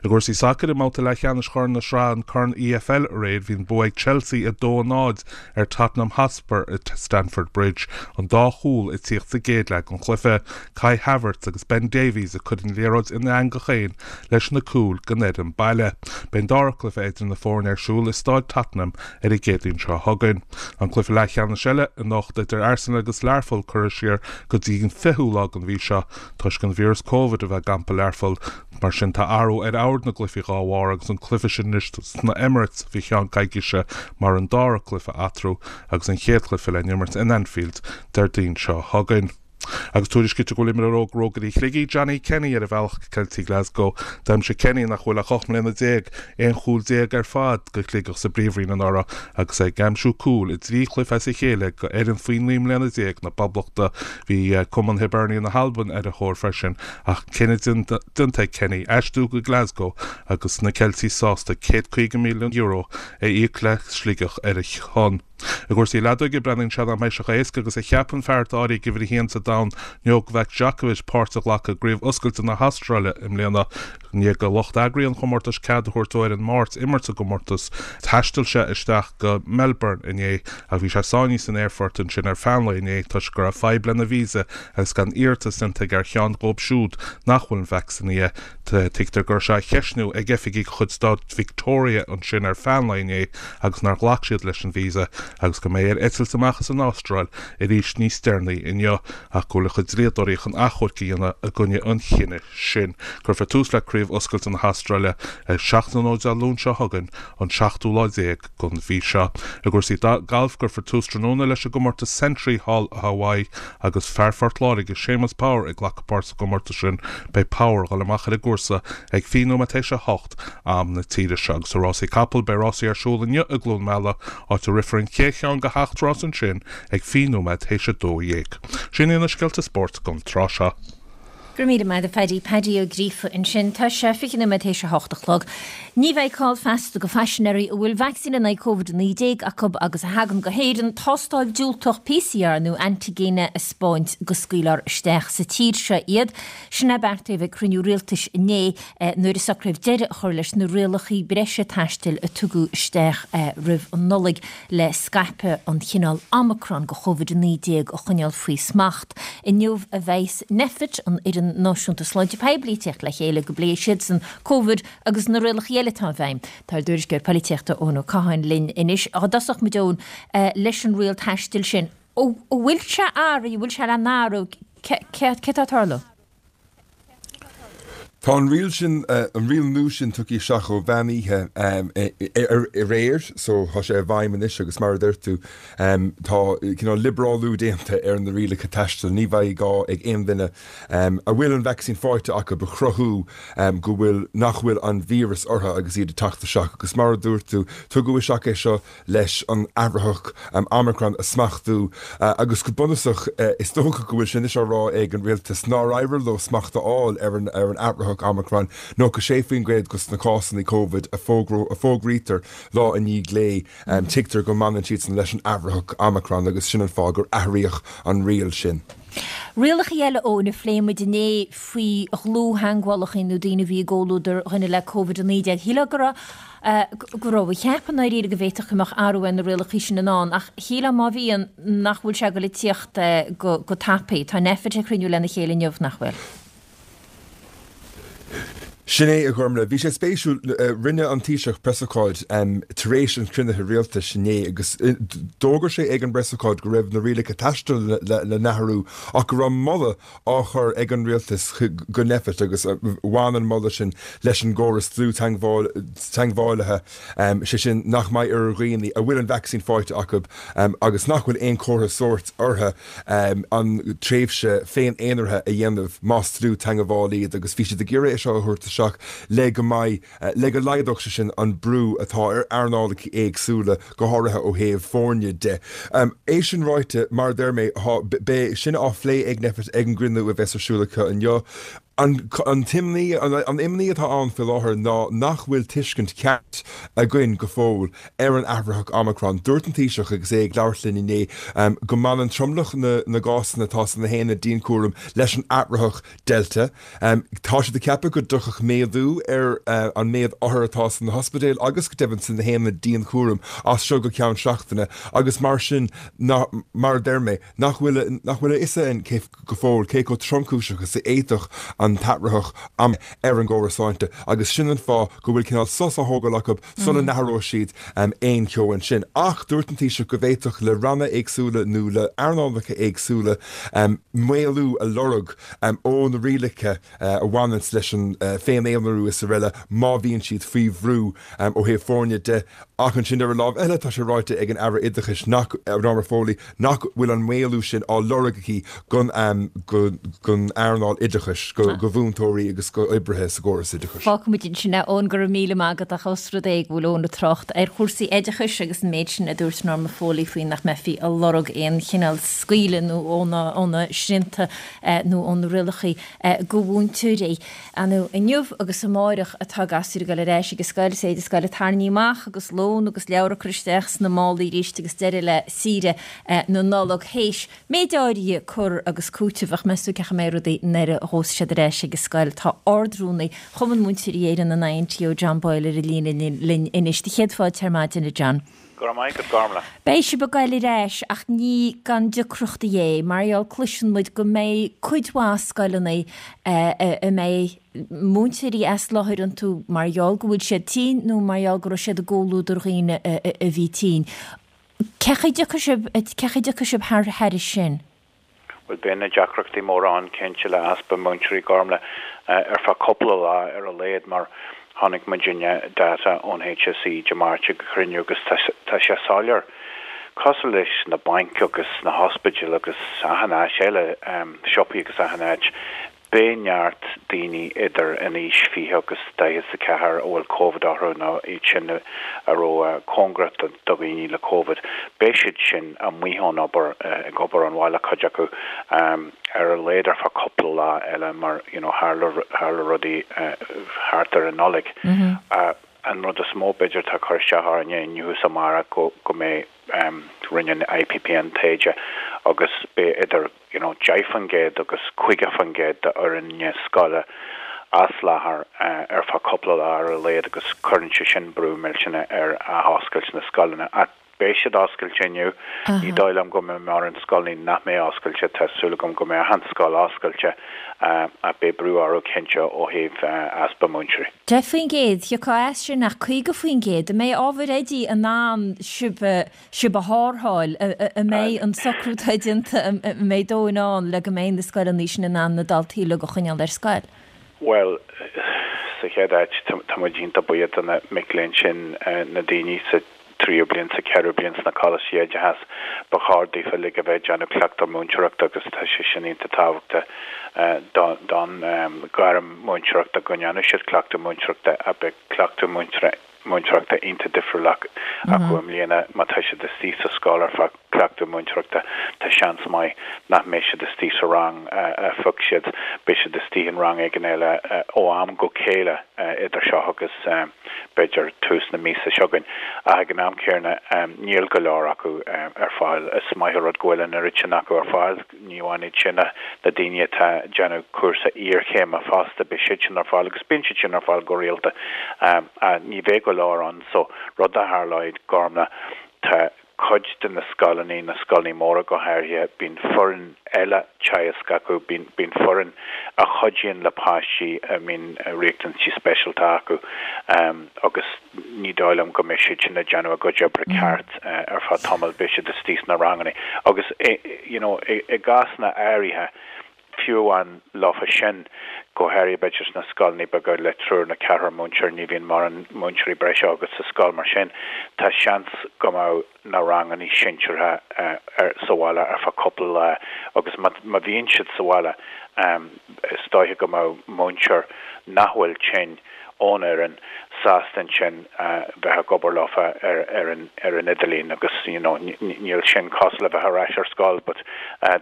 I gcúrsaí sacair, i mbabhta leathcheannais Chorn na Sraithe an Corn EFL aréir, bhí an bua ag Chelsea 2-0 ar Tottenham Hotspur i Stamford Bridge, an dá chúl ag tíocht sa gcéad leath den chluiche. Kai Havertz agus Ben Davies ag cur an liathróid ina eangach féin leis na cúil don fhoireann baile. Beidh an dara cluiche idir na foirne ar siúl i Stáid Tottenham ar an gCéadaoin seo chugainn. An cluiche leathcheannais eile anocht idir Arsenal agus Learpholl curtha siar go dtí an 20ú lá den mhí seo toisc an víreas Covid a bheith ag gampa Learpholl. Mar sin tá athrú ar ord na gcluichí dhá bharr agus an cluiche sin anois sna Emirates faoi cheann coicíse mar an dara cluiche eatarthu agus an chéad chluiche le n-imirt in Anfield Déardaoin seo chugainn. Agus tuairiscítear go bhfuil imreoir óg Rógairí Shligigh, Johnny Kenny, ar a bhealach go Ceiltigh Glasgow. D'aimsigh Kenny, nach bhfuil ach 18 mbliana, 11 chúl ar fad do Shligeach sa bPríomhroinn anuraidh agus é ag aimsiú cúil i dtrí chluiche as a chéile do fhoireann faoi 19 mbliana na Poblachta. Bhí cumann Hibernia na hAlban ar a thóir freisin ach cinneadh déanta ag Kenny aistriú go Glasgow agus na Ceiltigh sásta €150,000 a íoc le Sligeach ar a shon. I gcúrsaí leadóige, breathnaíonn sé nach mbeidh sé chomh héasca agus a cheap an fear atá áirithe ag uimhir a haon sa domhan, Novak Djokovic, páirt a ghlacadh i gCraobh Oscailte na hAstráile i mbliana. I ndiaidh do lucht eagraithe an chomórtais cead a thabhairt dó ar an Máirt imirt sa gcomórtas, thaistil sé isteach go Melbourne inné ach bhí sé sáinnithe san aerfort ansin ar feadh an lae inné toisc go raibh fadhb lena visa agus gan iarratas déanta aige ar cheann dhóibh siúd nach bhfuil vacsaínithe. Tuigtear go raibh sé á cheistniú ag oifigigh de chuid stát Victoria ansin ar feadh an lae inné agus nár ghlac siad leis an visa agus go mbeidh air eitilt amach as an Astráil arís níos deireanaí inniu ach go bhfuil a chuid dlíodóirí chun achomharc a dhéanamh i gcoinne an chinnidh sin. Cuirfear tús le Craobh Oscailte na hAstráile ag 7 tráthnóna Dé Luain seo chugainn, an seachtú lá déag den mhí seo. I gcúrsaí gailf, cuirfear tús tráthnóna leis an gcomórtas Sentry thall i Hawaii agus fear Phort Láirge, Séamus Power ag glacadh páirt sa gcomórtas sin. Beidh Power ag dul amach ar an gcúrsa ag 20 nóiméad théis a hocht am na tíre seo. Agus i rásaí capall, beidh rásaí ar siúl inniu i gCluain Meala, áit a rithfear an chéad cheann de sheacht rás ansin ag 20 nóiméad théis a 12. Sin iad na scéalta spóirt don tráth seo. Go raibh míle maith agat a Phaddy. Paddy Ó Gríofa ansin. Tá sé 20 nóiméad théis a hocht a chlog. Ní bheidh call feasta do phaisinéirí a bhfuil vacsaín in aghaidh Covid-19 acu agus a thagann go hÉirinn tástáil diúltach PCR nó antaigine a 'spáint go scaoilfear isteach sa tír seo iad. Sin é beartaíodh ag cruinniú rialtais inné nuair a socraíodh deireadh a chur leis na rialacha breise taistil a tugadh isteach roimh an Nollaig le scaipeadh an chineáil Omicron de Covid-19 a choinneáil faoi smacht. Inniu a bheas Nphet, an Fhoireann Náisiúnta Sláinte Poiblí, ag teacht le chéile go bpléifidh siadsan Covid agus na rialacha eile atá i bhfeidhm. Tá ár dtuairisceoir polaitíochta Eoin Ó Catháin linn anois. Dá dtosódh muid, Eoin, leis an riail taistil sin, an bhfuil sé athraithe, an bhfuil sé le n-athrú, céard atá ag tarlú? Tá an riail sin, an riail nua sin tugtha isteach ó mheán oíche aréir so tá sé i bhfeidhm anois agus mar a deir tú tá cineál liobrálú déanta ar na rialacha taistil. Ní bheidh gá ag aon duine a bhfuil an vacsaín faighte acu a chruthú go bhfuil, nach bhfuil an víreas orthu agus iad ag teacht isteach agus mar a dúirt tú, tugadh isteach é seo leis an athraitheach Omicron a smachtú agus go bunúsach is dócha go bhfuil sé anois á rá ag an rialtas nár éirigh leo smacht a fháil ar an ar an athraitheach Omicron, 96% dos na cásanna Covid a fógraítear lá i ndiaidh lae, tuigtear go mbaineann siadsan leis an athraitheach Omicron agus sin an fáth gur athraíodh an riail sin. Rialacha eile, Eoin, a phléigh muid inné faoi dhlúth-theagmhálacha nó daoine a bhí i gcomhluadar dhuine le Covid-19. Shílfeá go raibh go raibh a cheapadh i ndáiríre go bhféadfadh go mbeadh athrú ar na rialacha sin i ndán, ach shílfeá má bhíonn, nach bhfuil sé ag dul ag tíocht go go tapaidh. Tá Nphet ag cruinniú lena chéile inniu, nach bhfuil? Sin é, a Ghormlaith. Bhí sé spéisiúil, rinne an Taoiseach preasócáid tar éis an chruinnithe rialtais inné agus d'fhógair sé ag an bpreasócáid go raibh na rialacha taistil le n-athrú ach go raibh moladh á chur ag an rialtas go Nphet agus bhain an moladh sin leis an gcóras dlúth-teagmhálaithe, sé sin nach mbeidh ar dhaoine a bhfuil an vacsaín faighte acu agus nach bhfuil aon chomhartha sóirt orthu an tréimhse féin-aonaraithe a dhéanamh más dlúth-teagmhálaí iad agus bhí siad ag iarraidh é seo a thabhairt isteach le go mbeidh le go laghdódh sé sin an brú atá ar earnálacha éagsúla, go háirithe ó thaobh foirne de. É sin ráite, mar a deir mé, beidh sin á phlé ag Nphet ag an gcruinniú a bheas ar siúl acu inniu. An t-imní, an imní atá ann faoi láthair ná nach bhfuil tuiscint cheart againn go fóill ar an athraitheach Omicron. Dúirt an Taoiseach agus é ag labhairt linn inné go mbaineann tromlach na gcásanna atá sna haonaid dianchúraim leis an athraitheach Delta. Tá siad ag ceapadh go dtiocfadh méadú ar an méad othar atá sna hospidéil agus go deimhin sna haonaid dianchúraim as seo go ceann seachtaine agus mar sin, mar a deir mé, nach bhfuil nach bhfuil a fhios againn cé go fóill cé chomh tromchúiseach is a d'fhéadfadh an t-athraitheach ar an gcóras sláinte agus sin an fáth go bhfuil cineál sos á thógáil acu sula n-athróidh siad aon cheo ansin. Ach dúirt an Taoiseach go bhféadfadh le ranna éagsúla nó le earnálacha éagsúla maolú a lorg ó na rialacha a bhaineanns leis an féin-aonarú is araile má bhíonn siad faoi bhrú ó thaobh foirne de. Ach ansin ar an lámh eile tá sé ráite ag an Aire Oideachais nach, Norma Foley, nach bhfuil an maolú sin á lorg aici don earnáil oideachais, go mhúinteoirí agus go oibrithe sa gcóras oideachais. Fágfaimid ansin é, Eoin, go raibh míle maith agat ach ós rud é go bhfuil Eoin ag trácht ar chúrsaí oideachais agus an méid sin a dúirt Norma Foley faoi nach mbeifí ag lorg aon chineál scaoileadh nó ó na srianta nó ó na rialacha go mhúinteoirí. Ar ndóigh, inniu agus amáireach atá gasúir ag dul ar ais ag an scoil, is éide scoile tarraingthe amach agus lón agus leabhar curtha isteach sna málaí arís agus deireadh le saoire na Nollag théis méid áirithe cur agus cúiteamh ach meas tú cén chaoi a mbeidh rudaí nuair a ghabhfas siad ar ais. ar ais ag an scoil. Tá Ard-Rúnaí Chumann Múinteoirí Éireann, an INTO, John Boyle ar an líne linn anois. Do chéad fáilte ar maidin, a John. Go raibh maith agat, Gormlaith. Beidh sibh ag goil ar ais ach ní gan deacrachtaí é, mar gheall cloiseann muid go mbeidh cuid mhaith scoileanna a mbeidh múinteoirí as láthair iontu mar gheall go bhfuil siad tinn nó mar gheall go raibh siad i gcomhluadar dhaoine a bhí tinn. Cén chaoi a dtiocfaidh sibh, cén chaoi a dtiocfaidh sibh thairis sin? Bhuel, beidh na deacrachtaí móra ann cinnte le easpa múinteoirí, Gormlaith, ar feadh cúpla lá ar a laghad mar chonaic muidinne data ón HSE Dé Máirt ag cruinniú agus tá sé soiléir, cosúil leis na bainc agus na hospidéil agus achan áit eile, siopaí agus achan áit, Beidh neart daoine idir an aois 20 agus 44 a bhfuil Covid orthu nó iad sin a raibh cóngarach do dhaoine le Covid, beidh siad sin amuigh ón obair, ag obair ón bhaile cuid acu, ar a laghad ar feadh cúpla lá eile mar you know tharla tharla rudaí thart ar an Nollaig. An rud is mó b'fhéidir atá ag cur isteach orainne inniu is amárach go go mbeidh rinne an IPPN taighde agus beidh idir you know 10% agus 50% de fhoirne scoile as láthair ar feadh cúpla lá ar a laghad agus cuireann sé sin brú millteanach ar athoscailt na scoileanna. Ach beidh siad oscailte inniu. Ní dóigh liom go mbeidh mórán scoileanna nach mbeidh oscailte. Tá súil agam go mbeidh achan scoil oscailte ach beidh brú orthu cinnte ó thaobh easpa múinteoirí. 10%, thiocfá as sin ach 50%, an mbeidh ábhair oidí in ann sibh a sibh a tharrtháil, an mbeidh an socrú atá déanta, an mbeidh dóthain ann le go mbeidh na scoileanna sin in ann na daltaí uilig a choinneáil ar scoil? Bhuel, sa chéad áit, tá muid iontach buíoch do na mic léinn sin, na daoine sa tríú bliain, sa cheathrú bliain sna coláistí oideachais. Ba chóir daofa uilig a bheith ag déanamh cleachtadh múinteoireachta agus tá sé sin iontach tábhachtach don ghairm múinteoireachta go ndéanadh siad cleachtadh múinteoireachta ach beidh cleachtadh múinteoireachta iontach difriúil acu i mbliana. Má tá siad istigh sa scoil ar feadh cleachtadh múinteoireachta, tá seans maith nach mbeidh siad istigh sa rang a phioc siad, beidh siad istigh in rang éigin eile ó am go chéile idir seo agus b'fhéidir tús na míosa seo chugainn. Ach ag an am céanna, níl go leor acu ar fáil. Is maith an rud go bhfuil an oiread sin acu ar fáil. Ní amháin iad sin ach na daoine atá ag déanamh cúrsa iarchéime fosta, beidh siad sin ar fáil agus bíonn siad sin ar fáil go rialta. Ní bheidh go leor ann so rud a tharlóidh, Gormlaith, tá cuid de na scoileanna, na scoileanna móra go háirithe, bíonn foireann eile teagaisc acu, bíonn, bíonn foireann a chuidíonn le páistí a mbíonn riachtanaisí speisialta acu agus ní dóigh liom go mbeidh siad sin ag déanamh a gcuid oibre ceart ar feadh tamaill, beidh siad istigh sna ranganna agus you know i gcásanna áirithe, fiú amháin leofa sin, go háirithe b'fhéidir sna scoileanna beaga le triúr nó ceathrar múinteoir, ní bhíonn mórán múinteoirí breise agat sa scoil mar sin, tá seans go mbeadh na ranganna sinseartha sa bhaile ar feadh cúpla lá agus má bhíonn siad sa bhaile is dóiche go mbeadh múinteoir nach bhfuil tinn ón fhoireann sásta ansin bheith ag obair leofa ar an ar an idirlíon agus you know níl sin cosúil le bheith ar ais ar scoil but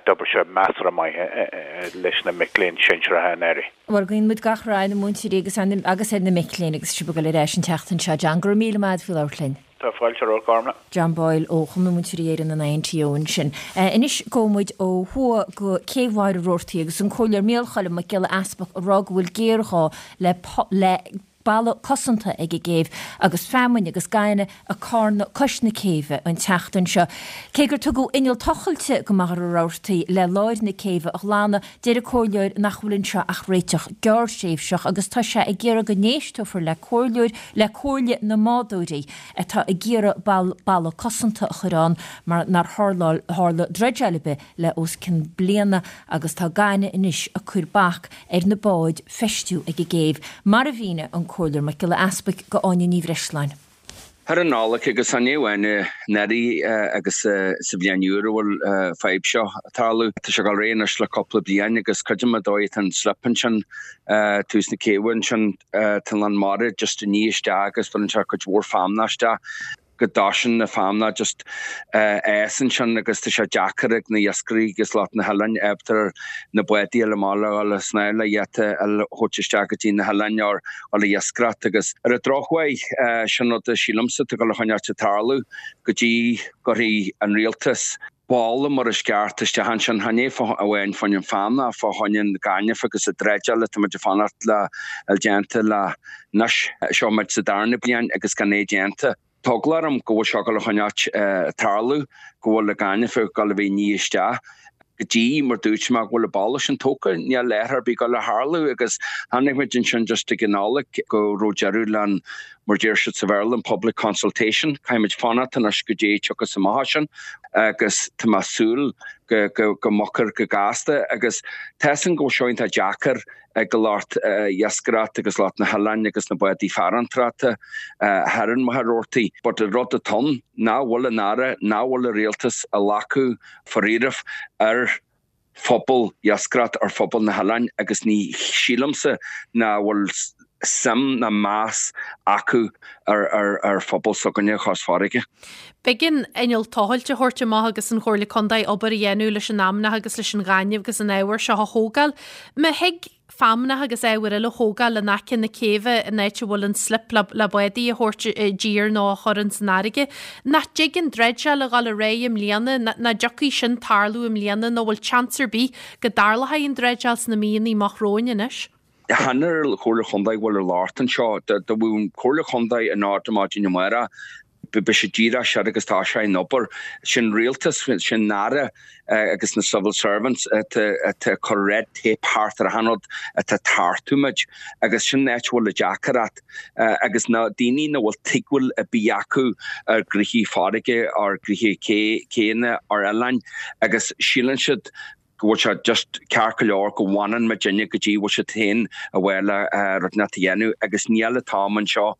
d'oibrigh sé measartha maith leis na mic léinn sinsearacha anuraidh. Bhuel, guíonn muid gach rath ar na múinteoirí agus agus ar na mic léinn agus sibh ag dul ar ais an tseachtain seo. John, go raibh míle maith agat faoi labhairt linn. Tá fáilte romhat, Gormlaith. John Boyle ó Chumann Múinteoirí Éireann an INTO ansin. Anois gabhfaidh muid ó thuaidh go Cé Mhachaire Rabhartaigh agus an Comhairleoir Micheál Choilm Mac Giolla Easpaig ag rá go bhfuil géarghá le le balla cosanta ag an gcéibh agus feamainn agus gaineamh ag carnadh cois na céibhe an tseachtain seo. Cé gur tugadh inneall tochailte go Machaire Rabhartaigh le láir na céibhe a ghlanadh, deir an Comhairleoir nach bhfuil anseo ach réiteach gearrthréimhseach agus tá sé ag iarraidh go n-éisteofar le comhairleoir le Comhairle na mBádóirí atá ag iarraidh balla cosanta a chur ann mar nár tharla dreideáil ar bith le os cionn bliana agus tá gaineamh anois ag cur bac ar na báid feistiú ag an gcéibh, mar a mhínigh an Comhairleoir Mac Giolla Easpaig go Áine Ní Bhreisleáin. Thar an Nollaig agus ní amháin anuraidh agus sa bhliain úr a bhfuil fadhb seo ag tarlú. Tá sé ag dul ar aghaidh anois le cúpla bliain agus creidim an dóigh atá an slip ansin, tús na céibhe ansin, tá an lán mara just ag ní isteach agus bhaineann sé cuid mhór feamnach isteach. go dtoiseann na feamnach just fhás ansin agus tá sé deacair ag na iascairí agus lucht na hoileáin ábalta na bádaí a fháil amach le dhul ag snámh le iad a thabhairt isteach go dtí na hoileáin or dhul ag iascaireacht agus ar an drochuair sin rud a sílimse atá ag dul a choinneáilt ag tarlú go dtí go gcuirfidh an rialtas. Balla mar is ceart isteach ansin, chan é amháin fá choinne an feamnach, fá choinne an ghainimh agus an dreideáil atá muid ag fanacht le fháil déanta le anois. Seo muid sa darna bliain agus gan é déanta. Tá eagla orm go bhfuil seo ag dul a choinneáilt ag tarlú, go bhfuil an gaineamh ag dul a bheith ag ní isteach go dtí, mar dúirt mé, go bhfuil an balla sin tógtha, níl athrú ar bith ag dul a tharlú agus chonaic muid ansin just ag an Nollaig go raibh deireadh le an, mar deir siad sa Bhéarla, an public consultation. Caithfidh muid fanacht anois go dtí tiocfas amach as sin agus tá mé ag súil go, go, go mbogfar go gasta agus tá 'fhios a'm go bhfuil seo iontach deacair ag lucht iascaireachta agus lucht na hoileáin agus na bádaí farantrachta thoir in Machaire Rabhartaigh. But an rud atá ann, nach bhfuil an Aire, nach bhfuil an Rialtas ag glacadh faraoireamh ar phobal iascaireachta, ar phobal na hoileáin agus ní sílimse nach bhfuil suim ná meas acu ar phobal s'againne Chois Fharraige. B'éigean inneall tochailte a thabhairt amach agus an Chomhairle Contae obair a dhéanamh leis an fheamnach agus leis an ghaineamh agus an ábhar seo a thógáil. Má thig feamnach agus ábhar eile a thógáil in aice na céibhe in áit a bhfuil an slip le le bádaí a thabhairt i dtír nó a chur ins an fharraige, nach dtig an dreideáil a dhul ar aghaidh i mbliana, nach dtiocfaidh sin tarlú i mbliana nó bhfuil seans ar bith go dtarlóidh an dreideáil sna míonna amach romhainn anois? Chan ar an Chomhairle Chontae a bhfuil an locht anseo. Dá mbeadh an Chomhairle Chontae in ord ar maidin amárach, beidh sé díreach sin agus tá sé in obair. Sin rialtas, sin Aire agus na civil servants atá ag cur red tape thart ar achan rud atá ag tartú muid agus sin an áit a bhfuil an deacaireacht agus na daoine nach bhfuil tuigbheáil ar bith acu ar ghnoithí farraige, ar ghnoithí céanna, ar oileáin agus síleann siad go bhfuil sé just ceart go leor go bhfanann muidinne go dtí bhfuil siad féin a bheith le rud inteacht a dhéanamh agus níl an t-am anseo,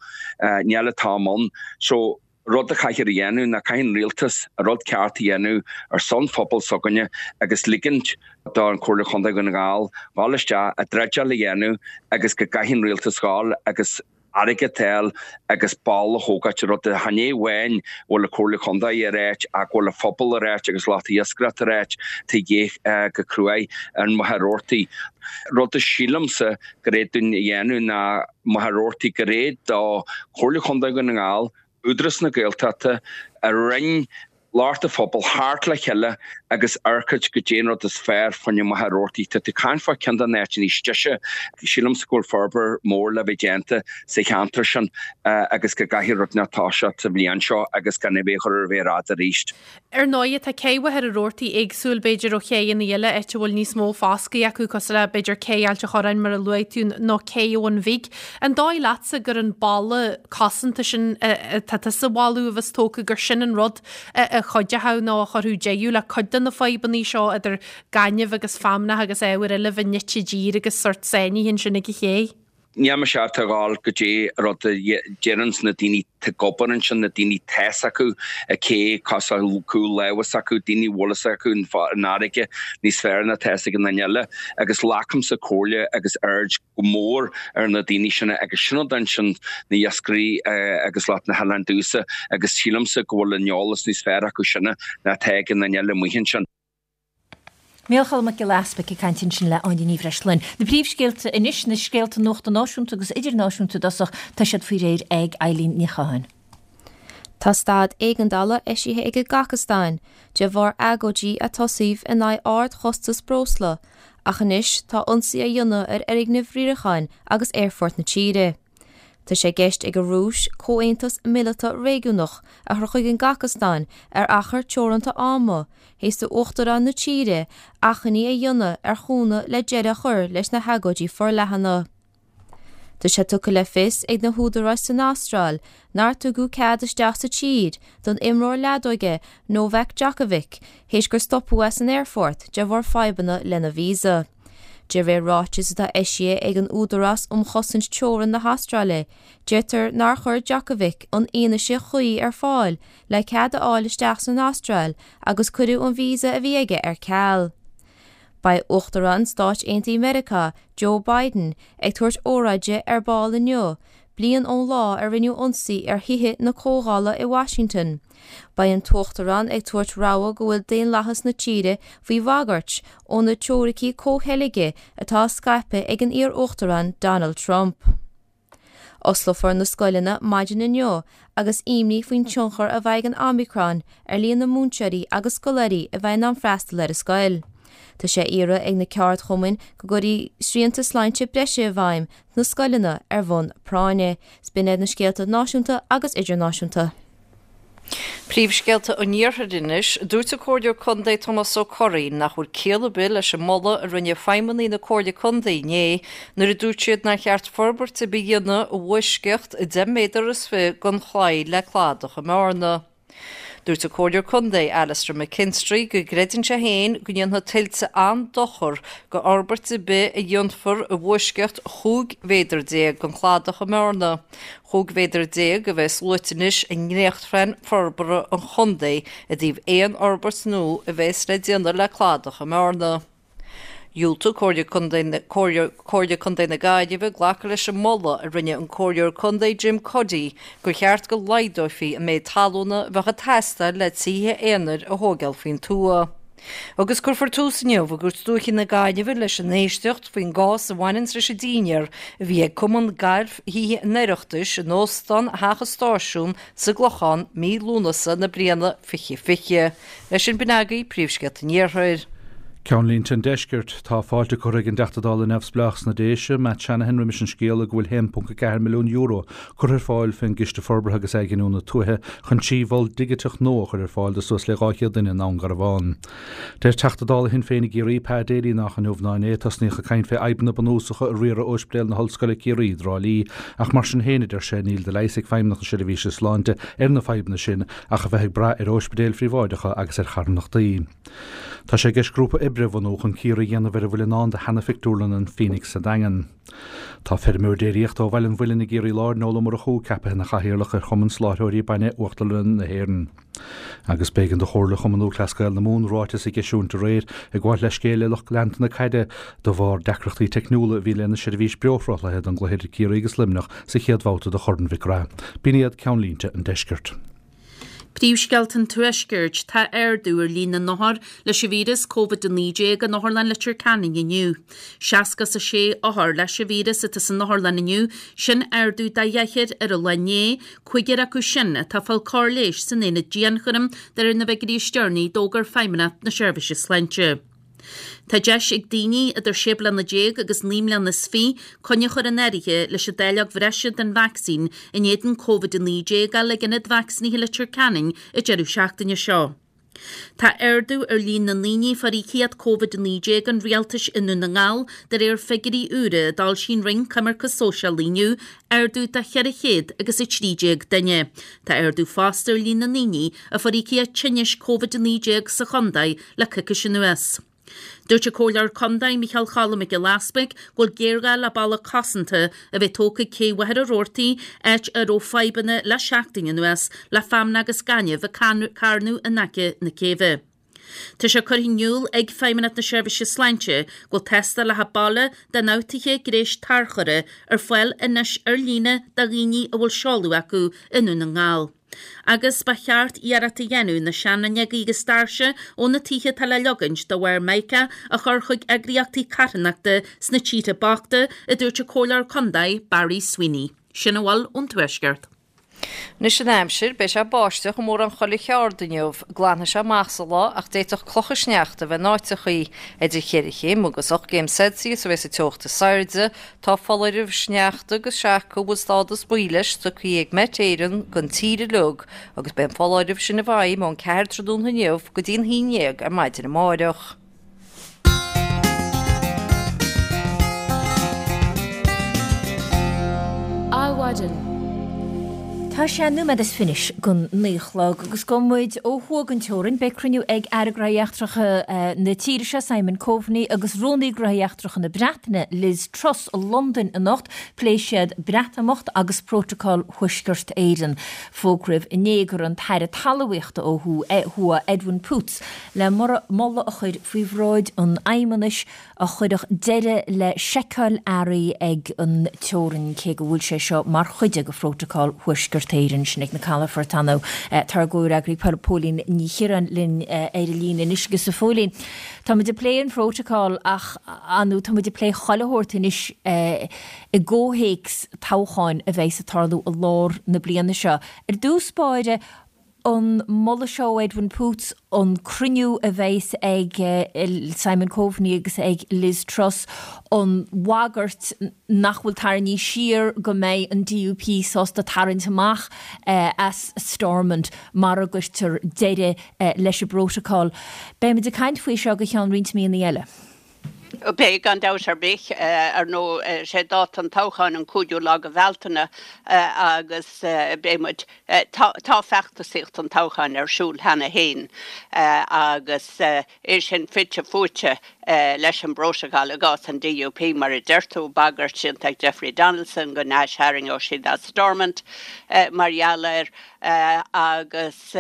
níl an t-am ann. So rud a chaithfear a dhéanamh ná caithfidh an rialtas an rud ceart a dhéanamh ar son phobal s'againne agus ligint don Chomhairle Chontae Dhún na nGall dhul isteach, an dreideáil a dhéanamh agus go gcaithfidh an rialtas dhul agus airgead a fháil agus balla a thógáilt, rud a chan é amháin go bhfuil an Chomhairle Chontae ag ráit ach go bhfuil an phobal ag ráit agus lucht iascaireachta ag ráit tá de dhíth go cruaidh ar Mhachaire Rabhartaigh. Rud a sílimse gur é dúinn a dhéanamh ná Machaire Rabhartaigh gur é do Chomhairle Chontae Dhún na nGall, Údarás na Gaeltachta, a Roinn, lucht an phobail theacht le chéile agus amharc goidé an rud is fearr fá choinne Machaire Rabhartaigh. Tá tú ag caint fá ceann de na áiteanna is deise. Sílimse go bhfuil forbairt mór le bheith déanta sa cheantar sin agus go gcaithfidh rud inteacht toiseacht sa bhliain seo agus gan é bheith a chur ar mhéar fhada arís. Ar ndóighe, tá cé Mhachaire Rabhartaigh éagsúil, b'fhéidir, ó chéanna eile, áit a bhfuil níos mó foscaidh acu, cosúil le, b'fhéidir, cé Ailt an Chorráin, mar a luaigh tú, nó cé Abhainn Bhig. An dóigh leatsa gur an balla cosanta sin atá tusa a mholadh a bheas tógtha, gur sin an rud a chuideochadh nó a chuirfeadh deireadh le cuid de na fadhbanna seo idir gaineamh agus feamnach agus ábhair eile a bheith nite i dtír agus sórt sáinnithe ansin ag an ché? Níl mise ábalta a ghabháil goidé rud a deireanns na daoine tá ag obair ansin, na daoine tá 'fhios acu an ché cosúil cúl láimhe s'acu, daoine a bhfuil 'fhios acu an fharraige níos fearr ná tá 'fhios ag an duine eile agus glacaimse comhairle agus aird go mór ar na daoine sin agus sin rud ansin na iascairí agus lucht na hoileáin domhsa agus sílimse go bhfuil an eolas níos fearr acu sin ná tá ag an duine eile amuigh ansin. Micheál Mac Giolla Easpaig ag caint ansin le Áine Ní Bhreisleáin. Na príomhscéalta anois, na scéalta nuachta náisiúnta agus idirnáisiúnta i dtosach, tá siad faoi réir ag Eileen Ní Chatháin. Tá staid éigeandála eisithe ag an gCasacastáin de bharr agóidí a tosaíodh in aghaidh ardchostas breosla ach anois tá ionsaí á dhéanamh ar fhoirgnimh riaracháin agus aerfort na tíre. Tá sé i gceist ag an Rúis comhaontas míleata réigiúnach a chur chuig an gCasacastáin ar achar teoranta ama, théis d'uachtarán na tíre achainí a dhéanamh ar chúnamh le deireadh a chur leis na hagóidí forleathana. Tá sé tugtha le fios ag na húdaráis san Astráil nár tugadh cead isteach sa tír don imreoir leadóige Novak Djokovic théis gur stopadh é san aerfort de bharr fadhbanna lena visa. De réir ráitis atá eisithe ag an Údarás um Chosaint Teorann na hAstráile, deirtear nár chuir Djokovic an fhianaise chuí ar fáil le cead a fháil isteach san Astráil agus cuireadh an visa a bhí aige ar ceal. Beidh Uachtarán Stáit Aontaithe Meiriceá, Joe Biden, ag tabhairt óráide ar ball inniu, bliain ón lá a rinneadh ionsaí ar Thithe na Comhdhála i Washington. Beidh an tUachtarán ag tabhairt rabhadh go bhfuil daonlathas na tíre faoi bhagairt ó na teoiricí comhcheilge atá á scaipeadh ag an iar-uachtarán Donald Trump. Osclófar na scoileanna maidin inniu agus imní faoin tionchar a bheidh ag an Omicron ar líon na múinteoirí agus scoláirí a bheidh in ann freastal ar an scoil. Tá sé á iarraidh ag na ceardchumainn go gcuirfí srianta sláinte breise i bhfeidhm sna scoileanna ar bhonn práinne. 'S b'in iad na scéalta náisiúnta agus idirnáisiúnta. Príomhscéalta an Iarthair anois. Dúirt an Comhairleoir Contae Tomás Ó Curraoin nach bhfuil ciall ar bith leis an moladh a rinne feidhmeannaigh na Comhairle Contae inné nuair a dúirt siad nár cheart forbairt ar bith a dhéanamh i bhfoisceacht 10 méadar is 20 den chlaí le cladach i mBearna. Dúirt an Comhairleoir Contae Alastair McKinstry go gcreideann sé féin go ndéanfaidh tuilte an-dochar do fhorbairt ar bith a dhéanfar i bhfoisceacht 15 mhéadar den chladach i mBearna. 15 mhéadar a bheas luaite anois i ndréachtphlean forbartha an chontae i dtaobh aon fhorbairt nua a bheas le déanamh le cladach i mBearna. Dhiúltaigh Comhairle Contae Comhairle Contae na Gaillimhe glacadh leis an moladh a rinne an Comhairleoir Contae Jim Cuddy gur cheart go laghdófaí an méid talúna a bheadh ag teastáil le tithe aonair a thóigeáil faoin tuath. Agus cuirfear tús inniu i gCúirt Dúiche na Gaillimhe leis an éisteacht faoin gcás a bhaineanns leis an dínnéar a bhí ag Cumann Gailf Thithe an Oireachtais in Óstán Theach an Stáisiúin sa gClochán mí Lúnasa na bliana 2020. Leis sin b'in agaibh príomhscéalta an Iarthair. Ceannlínte an Deiscirt. Tá fáilte curtha ag an dTeachta Dála Neamhspleách sna Déise, Matt Shanahan roimis an scéala go bhfuil €1.4 milliún curtha ar fáil fén gCiste Forbartha agus Athghiniúna Tuaithe chun 3 mhol digiteach nua a chur ar fáil do suas le 200 duine i nDún Garbhán. Deir Teachta Dála Shinn Féin i gCiarraí, Pa Daly nách inniu ná inné a tosnaíodh ag caint fé fhadhbanna bunúsacha i riaradh Óispidéal na hOllscoile Ciarraí i dTrá Lí ach mar sin féin, a deir sé, níl de leigheas ag Feidhmeannacht na Seirbhíse Sláinte ar na fadhbanna sin ach a bheith ag brath ar óispidéil phríobháideacha agus ar charthanachtaí. Tá sé i gceist grúpa oibre a bhunú chun cíoradh a dhéanamh ar a bhfuil i ndán do sheana-phictiúrlann an Phoenix sa Daingean. Tá feirmeoir déiríochta ó Bhaile an Mhuilinn i gCiarraí Láir, Noel Ó Murchú, ceapaithe ina chathaoirleach ar Chumann Soláthróirí Bainne Uachtarlanna na hÉireann. Agus b'éigean do Chomhairle Chumann Lúthchleas Gael na Mumhan ráiteas a dh'eisiúint aréir ag gabháilt leithscéil le lucht leanta na caide de bharr deacrachtaí teicniúla a bhí lena seirbhís beoshruthlaithe don gcluiche idir Ciarraí agus Luimneach sa chéad bhabhta de Chorn Mhic Graith. B'in iad ceannlínte an deiscirt. Príomhscéalta an Tuaiscirt, Tá ardú ar líon na n-othar leis an víreas Covid-19 in Otharlann Leitir Ceanainn inniu. 66 othar leis an víreas atá san otharlann inniu, sin ardú de dheichniúr ar an lá inné, cúigear acu sin atá ag fáil cóir leighis san aonad dianchúraim de réir na bhfigiúirí is deireanaí a d'fhógair Feidhmeannacht na Seirbhíse Sláinte. Tá deis ag daoine idir 16 bliana agus 29 mbliana coinne a chur in áirithe leis an dáileog bhreise den vacsaín in éadan Covid-19 a fháil ag Ionad Vacsaínithe Leitir Ceanainn an deireadh seachtaine seo. Tá ardú ar líon na ndaoine a fuair íocaíocht Covid-19 an rialtais i nDún na nGall de réir figiúirí úra a d'fhoilsigh an Roinn Coimirce Sóisialaí inniu, ardú de 400 agus 13 duine. Tá ardú fosta ar líon na ndaoine a fuair íocaíocht tinnis Covid-19 sa chontae le coicís anuas. Dúirt an Comhairleoir Contae Micheál Choilm Mac Giolla Easpaig go bhfuil géarghá le balla cosanta a bheith tógtha ag cé Mhachaire Rabhartaigh, áit a raibh fadhbanna le seachtain anuas le feamnach agus gaineamh ag carnadh in aice na céibhe. Tá sé curtha in iúl ag Feidhmeannacht na Seirbhíse Sláinte go bhfuil tástálacha baile d'ionfhabhtuithe gréis tarchurtha ar fáil anois ar líne do dhaoine a bhfuil seoladh acu i nDún na nGall. Agus ba cheart iarracht a dhéanamh na seanfhuinneoga agus doirse ó na tithe atá le leogaint de bharr Mica a chur chuig eagraíochtaí carthanachta sna tíortha bochta, a dúirt an Comhairleoir Contae Barry Sweeney. Sin a bhfuil ón Tuaisceart. Anois an aimsir, beidh sé ag báisteach i mórán chuile cheard inniu. Glanfaidh sé amach sa lá ach d'fhéadfadh clocha sneachta a bheith in áiteachaí. Idir cheithre chéim agus 8 gcéim Celsius a bheas an teocht is airde. Tá foláireamh sneachta agus seaca a bhfuil stádas buí leis tugtha ag Met Éireann don tír uilig agus beidh an foláireamh sin i bhfeidhm ón 4 tráthnóna inniu go dtí an 11 ar maidin amáireach. Adhmhaidin. Tá sé nóiméad is fiche don 9 a chlog agus gabhfaidh muid ó thuaidh den teorainn. Beidh cruinniú ag Aire Gnóthaí Eachtracha na tíre seo, Simon Coveney, agus Rúnaí Gnóthaí Eachtracha na Breataine, Liz Truss, i Londain anocht. Pléifidh siad Breatimeacht agus Prótacal Thuaisceart Éireann. Fógraíodh inné go raibh an tAire Talmhaíochta ó thuaidh, Edwin Poots, le moladh a chur faoi bhráid an Fheidhmeannais a chuirfeadh deireadh le seiceáil earraí ag an teorainn, cé go bhfuil sé seo mar chuid de Phrótacal Thuaisceart. Thuaisceart Éireann, sin ag na calafoirt ar ndóigh. Tá ár gcomhfhreagraí Póilín Ní Chiaráin linn ar an líne anois agus a Phóilín, tá muid ag plé an phrótacal ach ar ndóigh tá muid ag plé chuile shórt anois i gcomhthéacs toghcháin a bheidhs ag tarlú i lár na bliana seo. Ar dtús báire, an moladh seo ó Edwin Poots, an cruinniú a bheidhs ag Simon Coveney agus ag Liz Truss, an bhagairt nach bhfuil tarraingthe siar go mbeidh an DUP sásta tarraingt amach as Stormont mara gcuirtear deireadh leis an bprótacal. Beimid ag caint faoi seo go ceann roinnt míonna eile. Beidh, gan dabht ar bith. Ar ndóigh, sé dáta an toghcháin an cúigiú lá de Bhealtaine agus beidh muid, tá feachtasaíocht an toghcháin ar siúl cheana féin agus é sin fite fuaite leis an bprótacal i gcás an DUP, mar a deir tú, bagairt déanta ag Jeffrey Donaldson go n-aistharraingeodh siad as Stormont mar gheall air agus.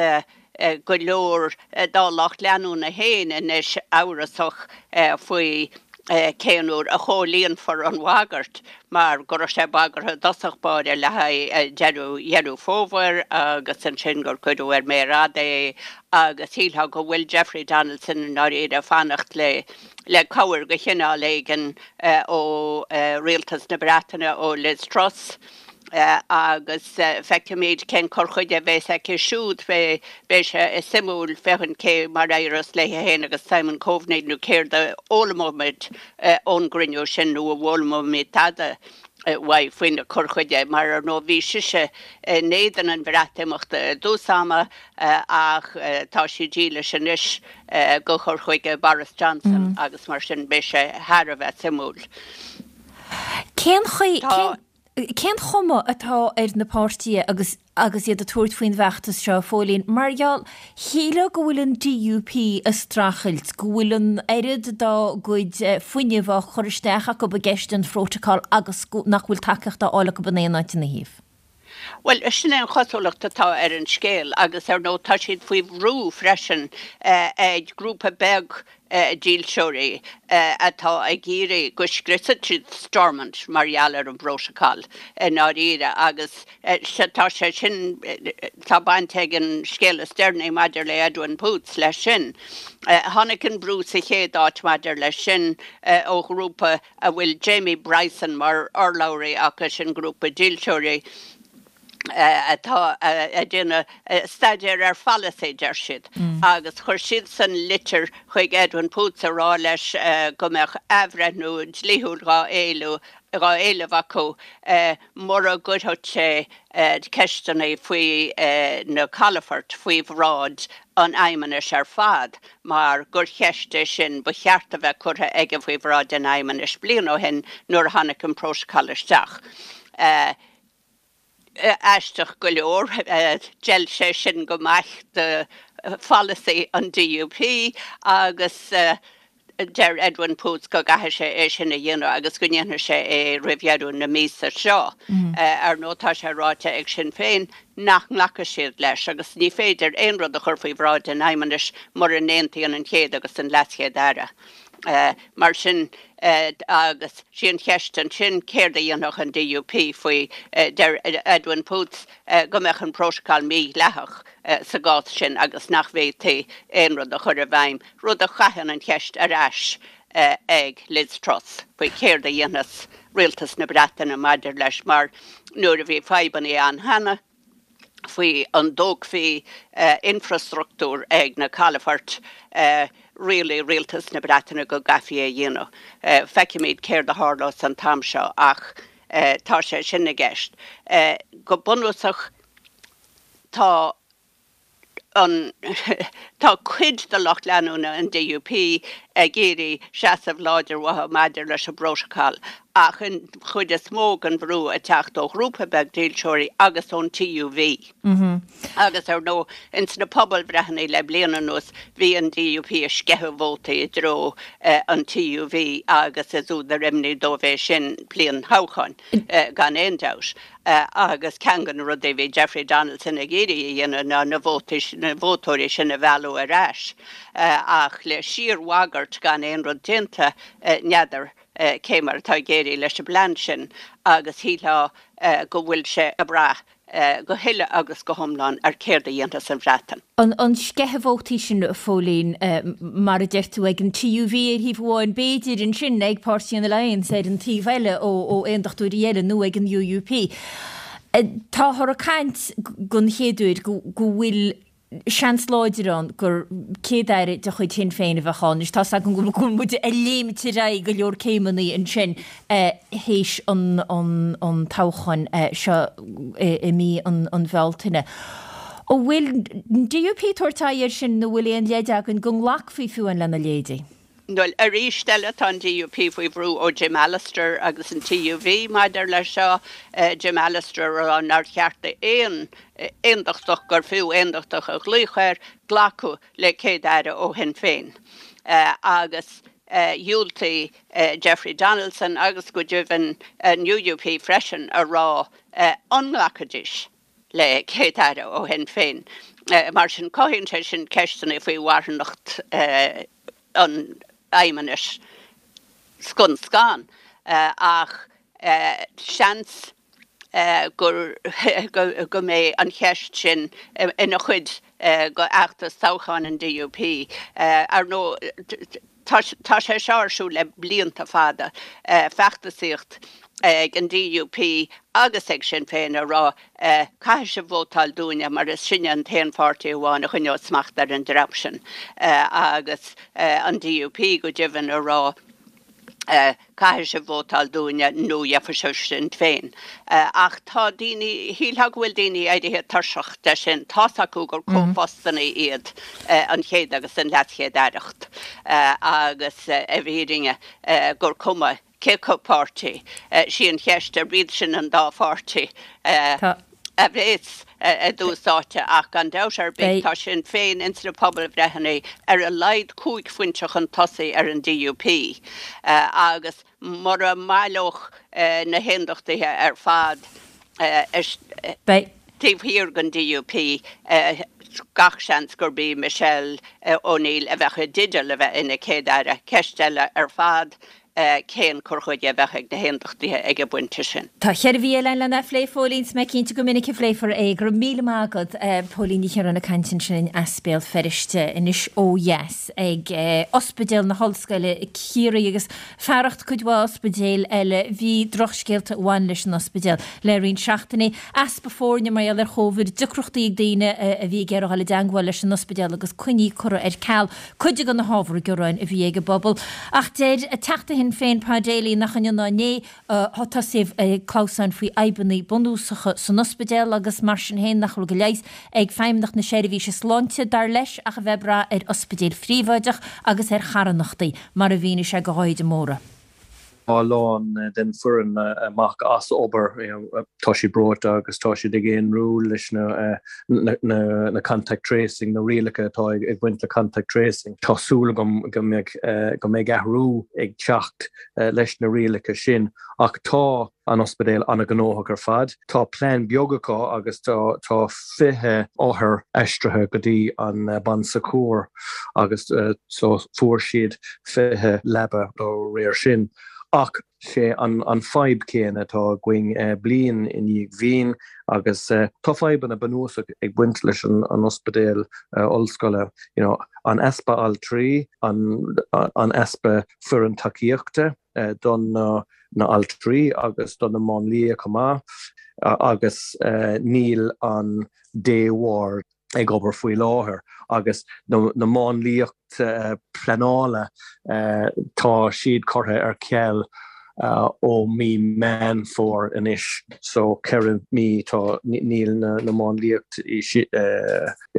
go leor dá lucht leanúna féin anois amhrasach faoi cén uair a chomhlíonfar an bhagairt mar go raibh sé bagartha i dtosach báire le haghaidh deireadh Dheireadh Fómhair agus ansin gur cuireadh ar méar fhada é agus shílfeá go bhfuil Jeffrey Donaldson i ndáiríre ag fanacht le le cabhair de chineál éigin ó Rialtas na Breataine, ó Liz Truss. agus feicfimid cén cur chuige a bheas aici siúd. Beidh sé suimiúil féachaint cé mar a éireos léi féin agus Simon Coveney nó céard a fhoghlaimeoimid ón gcruinniú sin nó an bhfoghlaimeoimid tada uaidh faoina cur chuige mar ar ndóigh bhí sise in éadan an Bhreatimeachta i dtús ama ach tá sí dílis anois do chur chuige Boris Johnson agus mar sin beidh sé thar a bheith suimiúil. Cén chaoi, cén chuma atá ar na páirtithe agus agus iad ag tabhairt faoin bhfeachtas seo, a Phóilín? Mar gheall, shílfeá go bhfuil an DUP ag streachailt, go bhfuil an oiread dá gcuid fuinnimh á chur isteach acu i gceist an phrótacail agus nach bhfuil tacaíocht á fháil acu in aon áit ina thaobh. Bhuel, sin é an chosúlacht atá ar an scéal agus ar ndóigh tá siad faoi bhrú freisin ag grúpa beag dílseoirí atá ag iarraidh go scriosfadh siad Stormont mar gheall ar an bprótacal i ndáiríre agus tá sé sin, tá baint ag an scéal is deireanaí maidir le Edwin Poots leis sin. Tháinig an brú sa chéad áit maidir leis sin ó ghrúpa a bhfuil Jamie Bryson mar urlabhraí acu, sin grúpa dílseoirí atá ag déanamh staidéir ar pholasaí, deir siad, agus chuir siadsan litir chuig Edwin Poots ag rá leis go mbeadh athbhreithniú dlíthiúil dhá éileamh acu mura gcuirfeadh sé ceisteanna faoi na calafoirt faoi bhráid an Fheidhmeannais ar fad. mar gur cheist é sin ba cheart a bheith curtha aige faoi bhráid an Fheidhmeannais bliain ó shin nuair a tháinig an Prótacal isteach. Aisteach go leor, d'fheil sé sin go maith do pholasaí an DUP agus deir Edwin Poots go gcaithfidh sé é sin a dhéanamh agus go ndéanfaidh sé é roimh dheireadh na míosa seo. Ar ndóigh tá sé ráite ag Sinn Féin nach nglacfaidh siad leis agus ní féidir aon rud a chur faoi bhráid an Fheidhmeannais mura n-aontaíonn an Chéad agus an LeasChéad Aire. Mar sin, agus sí an cheist ansin céard a dhéanfadh an DUP faoi, deir Edwin Poots go mbeadh an prótacal mídhleathach sa gcás sin agus nach bhféadfaí aon rud a chur i bhfeidhm, rud a chaitheann an cheist ar ais ag Liz Truss faoi céard a dhéanfas rialtas na Breataine maidir leis mar nuair a bhí fadhbanna ann cheana faoi an dtógfaí infreastruchtúr ag na calafoirt, rialaigh rialtas na Breataine go gcaithfí é a dhéanamh. Feicfimid céard a tharlós an t-am seo ach tá sé sin i gceist. Go bunúsach tá an Tá cuid de lucht leanúna an DUP ag iarraidh seasamh láidir uathu maidir leis an bprótacal ach an chuid is mó den bhrú ag teacht ó ghrúpa beag dílseoirí agus ón TUV. Agus ar ndóigh ins na pobalbhreitheanna le bliain anuas bhí an DUP ag sceitheadh vótaí i dtreo an TUV agus is údar imní dóibh é sin bliain thoghcháin gan aon dabht. Agus ceann de na rudaí a bhí Jeffrey Donaldson ag iarraidh a dhéanamh ná na vótaí, na vótóirí sin a mhealladh ar ais. Ach le síorbhagairt gan aon rud déanta, n'fheadar cé mar atá ag éirí leis an bplean sin agus shílfeá go bhfuil sé ag brath. go huile agus go hiomlán ar céard a dhéanfas an Bhreatain. An sceitheadh vótaí sin, a Phóilín, mar a deir tú, ag an TUV ar thaobh amháin, b'fhéidir ansin ag Páirtí an Alliance ar an taobh eile ó aondachtóirí eile nó ag an UUP. Táthar ag caint den chéad uair go bhfuil seans láidir ann gur Céad-Aire de chuid Shinn Féin a bheadh ann. Anois tá's agam go bhfuil muid ag léimt ar aghaidh go leor céimeanna ansin théis an toghcháin seo i mí an Bhealtaine. An bhfuil an DUP ag tabhairt aghaidh air sin nó bhfuil aon leid againn go nglacfaí fiú amháin lena leithéidí? Bhuel, arís eile, tá an DUP faoi bhrú ó Jim Allister agus an TUV maidir leis seo, Jim Allister a rá nár cheart d'aon aondachtach, gur fiú aondachtach a ghlaoch air, glacadh le Céad-Aire ó Shinn Féin. Agus dhiúltaigh Jeffrey Donaldson agus go deimhin an UUP freisin a rá an nglacfaidís. le Céad-Aire ó Shinn Féin. Mar sin, cothaíonn sé sin ceisteanna faoi mharthanacht an fheidhmeannais scun scan. Ach seans gur go mbeidh an cheist sin ina chuid de fheachtas toghcháin an DUP. Ar ndóigh, Tá sé seo ar siúl le blianta fada, feachtasaíocht ag an DUP agus ag Sinn Féin a rá 'caithfidh sibh vótáil dúinne mar is sinne an t-aon pháirtí amháin a choinneoidh smacht ar an dream sin' agus an DUP go deimhin a rá 'caithfidh sibh vótáil dúinne nó gheobhaidh sibh Sinn Féin'. Ach tá daoine, shílfeá go bhfuil daoine éirithe tuirseach de sin, tá's acu gur comhphostanna iad an chéad agus an leaschéad-aireacht agus i bhfírinne gur cuma cé acu páirtí, sí an cheist arb iad sin an dá pháirtí a bhéas i dtús áite ach gan dabht ar bith tá Sinn Féin ins na pobalbhreitheanna ar a laghad 5 phointe chun tosaigh ar an DUP agus mura mbaileodh na hAondachtaithe ar fad taobh thiar den DUP gach seans gurb í Michelle O'Neill a bheadh i dteideal a bheith ina Céad-Aire. Ceist eile ar fad cén cur chuige a bheadh ag na hAondachtaithe ag an bpointe sin. Tá cheithre mhí eile againn lena phlé, a Phóilín, 's mé cinnte gur minic a phléifear é. Go raibh míle maith agat, Póilín Ní Chiaráin ag caint ansin as Béal Feirste anois ó dheas ag Ospidéal na hOllscoile Ciarraí agus fearacht cuid mhaith ospidéil eile bhí drochscéalta a bhain leis an ospidéal le roinnt seachtainí. Easpa foirne mar gheall ar Chóvid, deacrachtaí ag daoine a bhí ag iarraidh dul i dteangmháil leis an ospidéal agus coinní curtha ar ceal. Cuid de na hábhair ghearáin a bhí ag an bpobal. Ach deir Teachta Shinn Féin Pa Daly nach inniu ná inné atá tosaithe ag clamhsán faoi fhadhbanna bunúsacha san ospidéal agus mar sin féin nach bhfuil de leigheas ag Feidhmeannacht na Seirbhíse Sláinte, dar leis, ach a bheith ag brath ar ospidéil phríobháideach agus ar charthanachtaí, mar a mhínigh sé do Dháithí de Mórdha. Tá a lán den foireann amach as obair, tá siad breoite agus tá siad ag aonrú leis na contact tracing, na rialacha atá ag baint le contact tracing. Tá súil agam go mbeidh go mbeidh athrú ag teacht leis na rialacha sin ach tá an ospidéal an-ghnóthach ar fad. Tá plean beag acu agus tá 20 othar aistrithe go dtí an Bon Secours agus so fuair siad 20 leaba dá réir sin. Ach sé an fadhb céanna atá againn bliain i ndiaidh bhliain agus tá fadhbanna bunúsach ag baint leis an ospidéal ollscoile, you know, an easpa altraí, an easpa foireann tacaíochta don na altraí agus do na máinlia chomh maith agus níl an day ward ag obair faoi láthair agus na máinliacht pleanála tá siad curtha ar ceal ó mí Meán Fómhair anois so 4 mí tá níl na máinliacht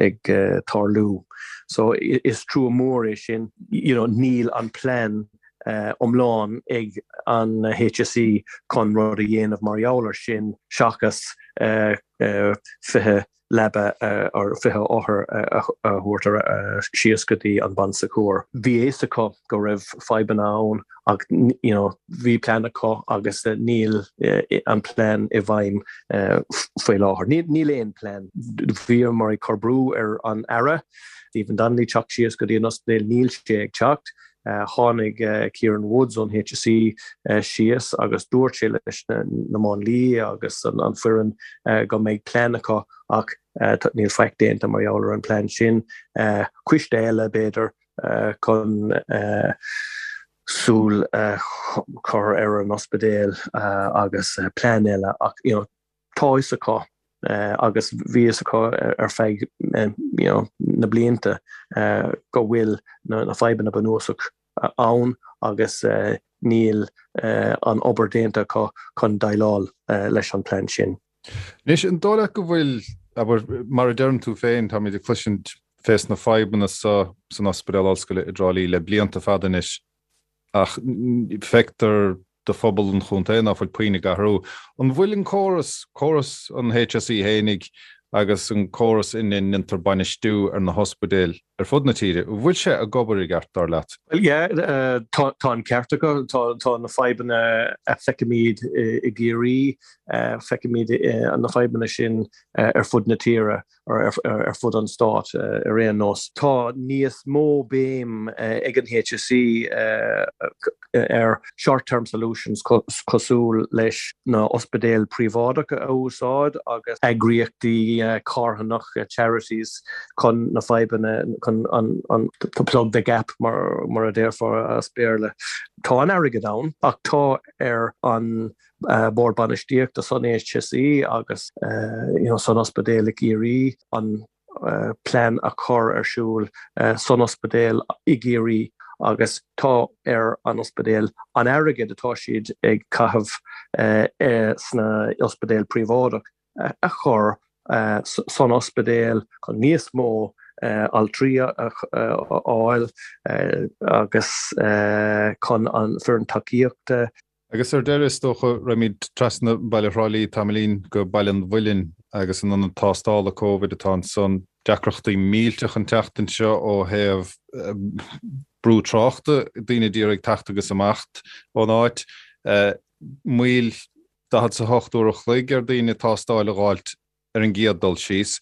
ag tarlú so is trua mór é sin you know níl an plean iomlán ag an HSE chun rud a dhéanamh mar gheall ar sin seachas 20 leaba or 20 othar a thabhairt síos go dtí an Bon Secours. Bhí a fhios acu go raibh fadhbanna ann ach you know bhí plean acu agus níl an plean i bhfeidhm faoi láthair. Níl aon plean. Bhíomar ag cur brú ar an Aire, Stephen Donnelly, teacht síos go dtí an ospidéal, níl sé ag teacht. Tháinig Kieran Woods ón HSE síos agus dúirt sé leis na máinliaigh agus an foireann go mbeidh plean acu ach níl faic déanta mar gheall ar an plean sin. Coiste eile, b'fhéidir, chun súil a chur ar an ospidéal agus plean eile ach you know tá fhios acu agus bhí fhios acu ar feadh you know na blianta go bhfuil na fadhbanna bunúsach ann agus níl an obair déanta acu chun déileáil leis an plean sin. Anois, an dóigh leat go bhfuil, abair, mar a deireann tú féin, táimid ag cloisint fés na fadhbanna so san Ospidéal Ollscoile i dTrá Lí le blianta fada anois, ach feictear do phobal an chontae ná fuil puinn ag athrú. An bhfuil an córas, córas an HSE fhéinig agus an córas ina ndéantar bainistiú ar na hospidéil ar fud na tíre, an bhfuil sé ag obair i gceart, dar leat? Bhuel, yeah, tá an ceart agat. Tá na fadhbanna a feicimid i gCiarraí, feicimid na fadhbanna sin ar fud na tíre. ar fud an stáit ar aon nós. Tá níos mó béim ag an HSE ar short term solutions cosúil leis na ospidéil príobháideacha a úsáid agus eagraíochtaí carthanacha, charities, chun na fadhbanna, chun an to plug the gap mar a déarfá as Béarla. Tá an airgead ann ach tá ar an Bord Bainistíochta san HSE agus san ospidéal i gCiarraí an plean a chur ar siúl san ospidéal i gCiarraí agus tá ar an ospidéal an airgead atá siad ag caitheamh sna ospidéal príobháideach a chur san ospidéal chun níos mó altraí a fháil agus chun an foireann tacaíochta Agus ar deireadh, is dócha, raghaimid trasna baile Thrá Lí tamaillín go Baile an Mhuilinn agus an ionad tástála Covid atá ansan. Deacrachtaí millteach an tseachtain seo ó thaobh brú tráchta, daoine ag iarraidh teacht agus imeacht ón áit. Moill 48 uair a chloig ar daoine tástáil a dh'fháilt ar an gcéad dul síos,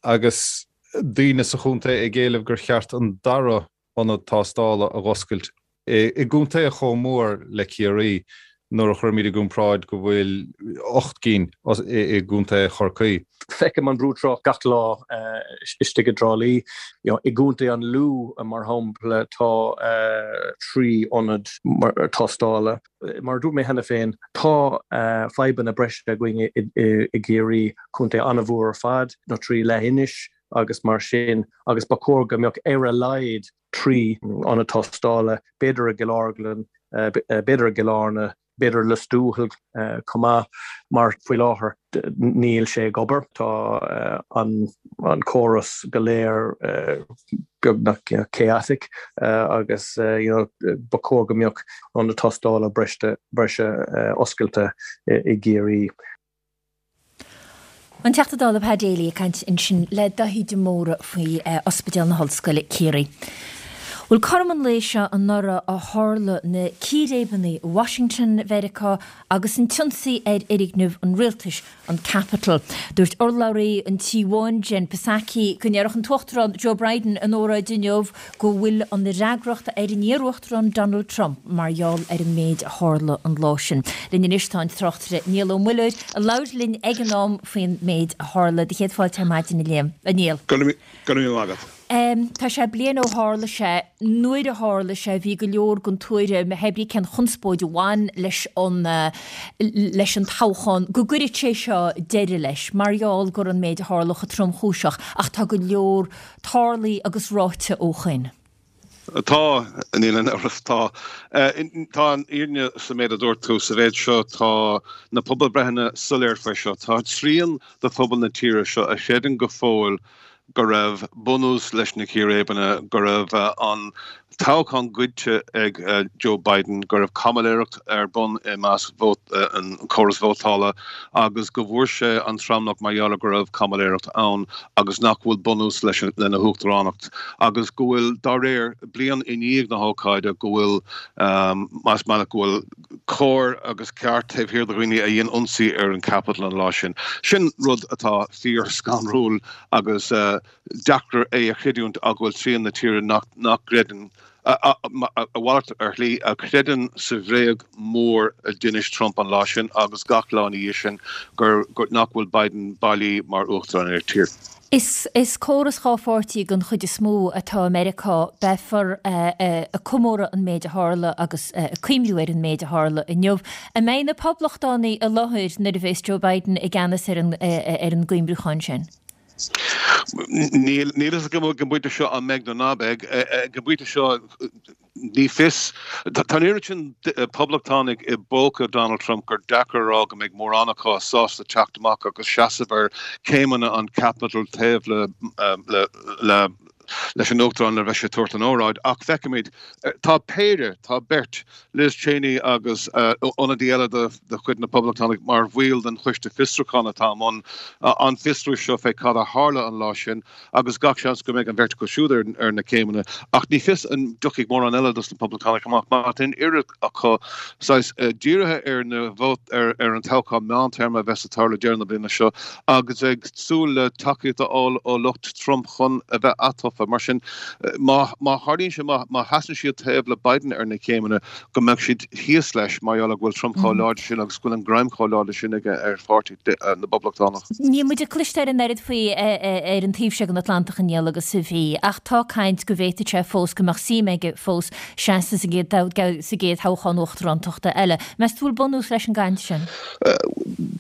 agus daoine sa chontae ag éileamh gur cheart an dara ionad tástála a dh'oscailt i gcontae chomh mór le Ciarraí nuair a chuirimid i gcomparáid go bhfuil 8 gcinn i gcontae Chorcaí. Feicim an brú trácht gach lá istigh i dTrá Lí. I gcontae an Lú, mar shampla, tá 3 ionad tástála. Mar a dúirt mé cheana féin, tá fadhbanna breise againn i gCiarraí, contae an-mhór ar fad, nó trí leathinis agus mar sin, agus ba chóir go mbeadh ar a laghad 3 ionad tástála, b'fhéidir i gCill Orglan, b'fhéidir i gCill Airne, b'fhéidir i Lios Tuathail chomh maith, mar faoi láthair níl sé ag obair. Tá an córas go léir beagnach chaotic agus ba chóir go mbeadh ionad tástála breise oscailte i gCiarraí. An Teachta Dála Pa Daly ag caint ansin le Daithí de Mórdha faoi Ospidéal na hOllscoile, Ciarraí. Bhuel, cothrom an lae seo anuraidh a tharla na círéibeanna i Washington, Mheiriceá agus an t-ionsaí ar fhoirgneamh an rialtais, an Capitol. Dúirt urlabhraí an Tí Bháin, Jen Psaki, go ndéarfadh an tUachtarán Joe Biden ina óráid inniu go bhfuil an fhreagracht ar an iar-uachtarán Donald Trump mar gheall ar an méid a tharla an lá sin. Linn anois tá an tráchtaire Niall Ó Muilleoir a labhair linn ag an am faoin méid a tharla. Do chéad fáilte ar maidin a Liam, a Niall. Go raibh míle maith agat. Tá sé bliain ó tharla sé. Nuair a tharla sé bhí go leor den tuairim, hé brí cén chonspóid a bhain leis an leis an toghchán, go gcuirfeadh sé seo deireadh leis mar gheall go raibh an méid a tharla chomh tromchúiseach ach tá go leor tarlaithe agus ráite ó shoin. Tá, níl aon amhras, tá. Tá an fhírinne sa méid a dúirt tú. Sa mhéid seo, tá na pobalbreitheanna soiléir faoi seo. Tá trian de phobal na tíre seo a chreideann go fóill go raibh bunús leis na círéibeanna, go raibh an toghchán goidte ag Joe Biden, go raibh caimiléireacht ar bun i measc an córas vótála agus go bhfuair sé an tromlach mar gheall ar go raibh caimiléireacht ann agus nach bhfuil bunús leis lena huachtaránacht agus go bhfuil, dá réir, bliain i ndiaidh na hócáide, go bhfuil, más maith leat, go bhfuil cóir agus ceart taobh thiar de dhaoine a dhein ionsaí ar an Capitol an lá sin. Sin rud atá fíor-scanrúil agus deacair é a chreidiúint ach go bhfuil trian na tíre nach gcreideann. A mhalairt ar shlí, a chreideann sa bhréag mhór a d'inis Trump an lá sin agus gach lá ina dhiaidh sin gur nach bhfuil Biden bailí mar uachtarán ar an tír. Is córas dhá pháirtí den chuid is mó atá i Meiriceá. Beifear ag comóradh an méid a tharla agus ag cuimhniú ar an méid a tharla inniu. An mbeidh na Poblachtánaigh i láthair nuair a bheas Joe Biden i gceannas ar an gcuimhniúchán sin? Níl a fhios agam ag an bpointe seo an mbeidh nó ná beidh. Ag an bpointe seo, Ní fios. Tá an oiread sin poblachtánaigh i bpóca Donald Trump gur deacair a rá go mbeidh mórán acu sásta teacht amach agus seasamh ar chéimeanna an Capitol taobh le leis an Uachtarán nuair a bheidh sé ag tabhairt an óráid. Ach feicfimid. Tá péire, tá beirt, Liz Cheney agus ionadaí eile de chuid na bPoblachtánach mar bhaill den choiste fiosrúcháin atá i mbun an fiosrú seo fé cad a tharla an lá sin. agus gach seans go mbeidh an bheirt acu siúd ar na céimeanna, ach ní fios an dtiocfaidh mórán eile dos na Poblachtánaigh amach mar tá an oiread acu saghas dírithe ar na vótaí ar an toghchán meántéarma a bheas ag tarlú deireadh na bliana seo agus ag súil le tacaíocht a fháil ó lucht Trump chun a bheith atofa. Mar sin, má tharlaíonn sé, má sheasann siad taobh le Biden ar na céimeanna, go mbeadh siad thíos leis mar gheall ar go bhfuil Trump chomh láidir sin agus go bhfuil an greim chomh láidir sin aige ar pháirtí na bPoblachtánach. Níl muid ag cloisteáil an oiread faoi ar an taobh seo den Atlantach a Niall agus a bhí, ach tá caint go bhféadfadh sé fós, go mbeadh suim aige fós seasamh sa gcéad thoghchán uachtarántachta eile. Meas tú bhfuil bunús leis an gcaint sin?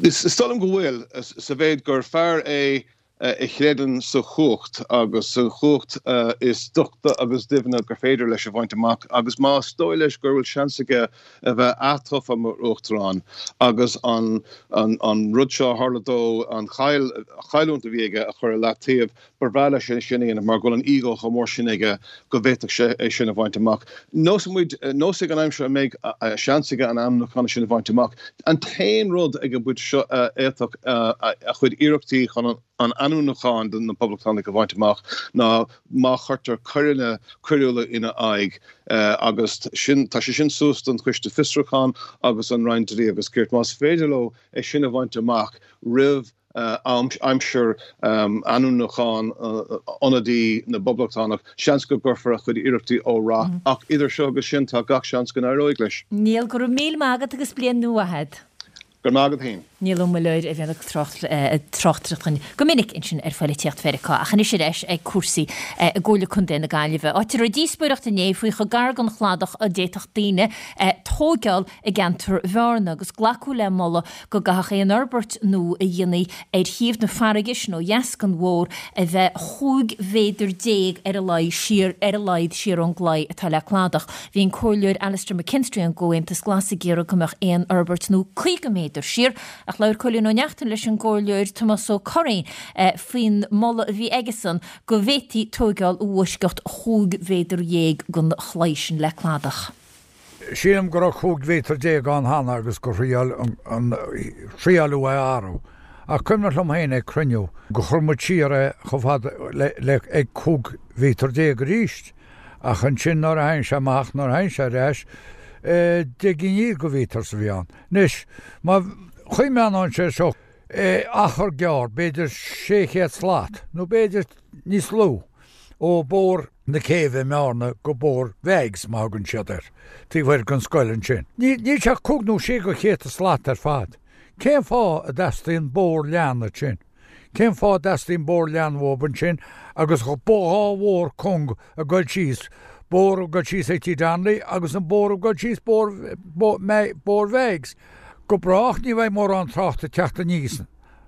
Is dóigh liom go bhfuil, sa mhéid gur fear é a chreideann sa chumhacht agus sa chumhacht is doichte agus doimhne gur féidir leis a bhaint amach agus más dóigh leis go bhfuil seans aige a bheith atofa mar uachtarán agus an an rud seo a tharla dó, an chailliúint a bhí aige a chur i leataobh, ba bhreá leis é sin a dhéanamh mar go bhfuil an ego chomh mór sin aige go bhféadfadh sé é sin a bhaint amach. Neosfaidh muid, neosfaidh an aimsir an mbeidh seans aige an ainmniúchán sin a bhaint amach. An t-aon rud ag an bpointe seo a fhéadfadh a chuid iarrachtaí chun an ainmniúchán do na Poblachtánaigh a bhaint amach ná má chuirtear coireanna coiriúla ina aghaidh agus sin, tá sé sin suas don Choiste Fiosrúcháin agus an Roinn Dlí agus Cirt. Más féidir leo é sin a bhaint amach roimh aimsir ainmniúchán ionadaí na bPoblachtánach, seans go gcuirfear a chuid iarrachtaí ó rath. Ach idir seo agus sin, tá gach seans go n-éireoidh leis. Niall, go raibh míle maith agat agus bliain nua mhaith agat. Go raibh maith agat féin. Niall Ó Muilleoir a bhíonn ag tráchtaireacht dhúinn go minic ansin ar phoilitíocht Mheiriceá. Ach anois ar ais ag cúrsaí i gComhairle Contae na Gaillimhe, áit a raibh díospóireacht inné faoi chomh gar don chladach a d'fhéadfadh daoine tóigeáil i gceantar Bhearna agus glacadh le moladh go gcaithfeadh aon fhorbairt nua a dhéanfaí ar thaobh na farraige sin ó dheas den bhóthar a bheith 15 mhéadar ar a laghad siar ar a laghad siar ón gclaí atá le cladach. Bhí an Comhairleoir Alastair McKinstry ón gComhaontas Glas ag iarraidh go mbeadh aon fhorbairt nua 50 méadar siar ach labhair Cóilín Ó Neachtain leis an gComhairleoir Tomás Ó Curraoin faoin moladh a bhí aigesan go bhféadfaí tóigeáil i bhfoisceacht 15 mhéadar den chlaí sin le cladach. Sílim go raibh 15 mhéadar ann cheana agus gur thriail an thriaileadh é a athrú. Ach cuimhneach liom féin ag cruinniú gur chuir muid siar é chomh fada le le ag 15 mhéadar arís. Ach ansin nuair a thagann sé amach, nuair a thagann sé ar ais, 10 gcinn de mhéadar a bhí ann. Anois, má choimheánann sé seo achar gearr, b'fhéidir 600 slat, nó b'fhéidir níos lú, ó Bhóthar na Céibhe i mBearna go Bóthar Mheaigs, mar a thugann siad air, taobh thoir den scoil ansin. Níl sé ach cúig nó sé de chéadta slat ar fad. Cén fáth a dteastaíonn bóthar leathan ansin? Cén fáth a dteastaíonn bóthar leathan uathu ansin agus dhá bhóthar cúng ag dul síos, bóthar ag dul síos ag Tigh Donnelly agus an bóthar ag dul síos Bóthar Mheaigs? Go brách ní bheidh mórán tráchta ag teacht aníos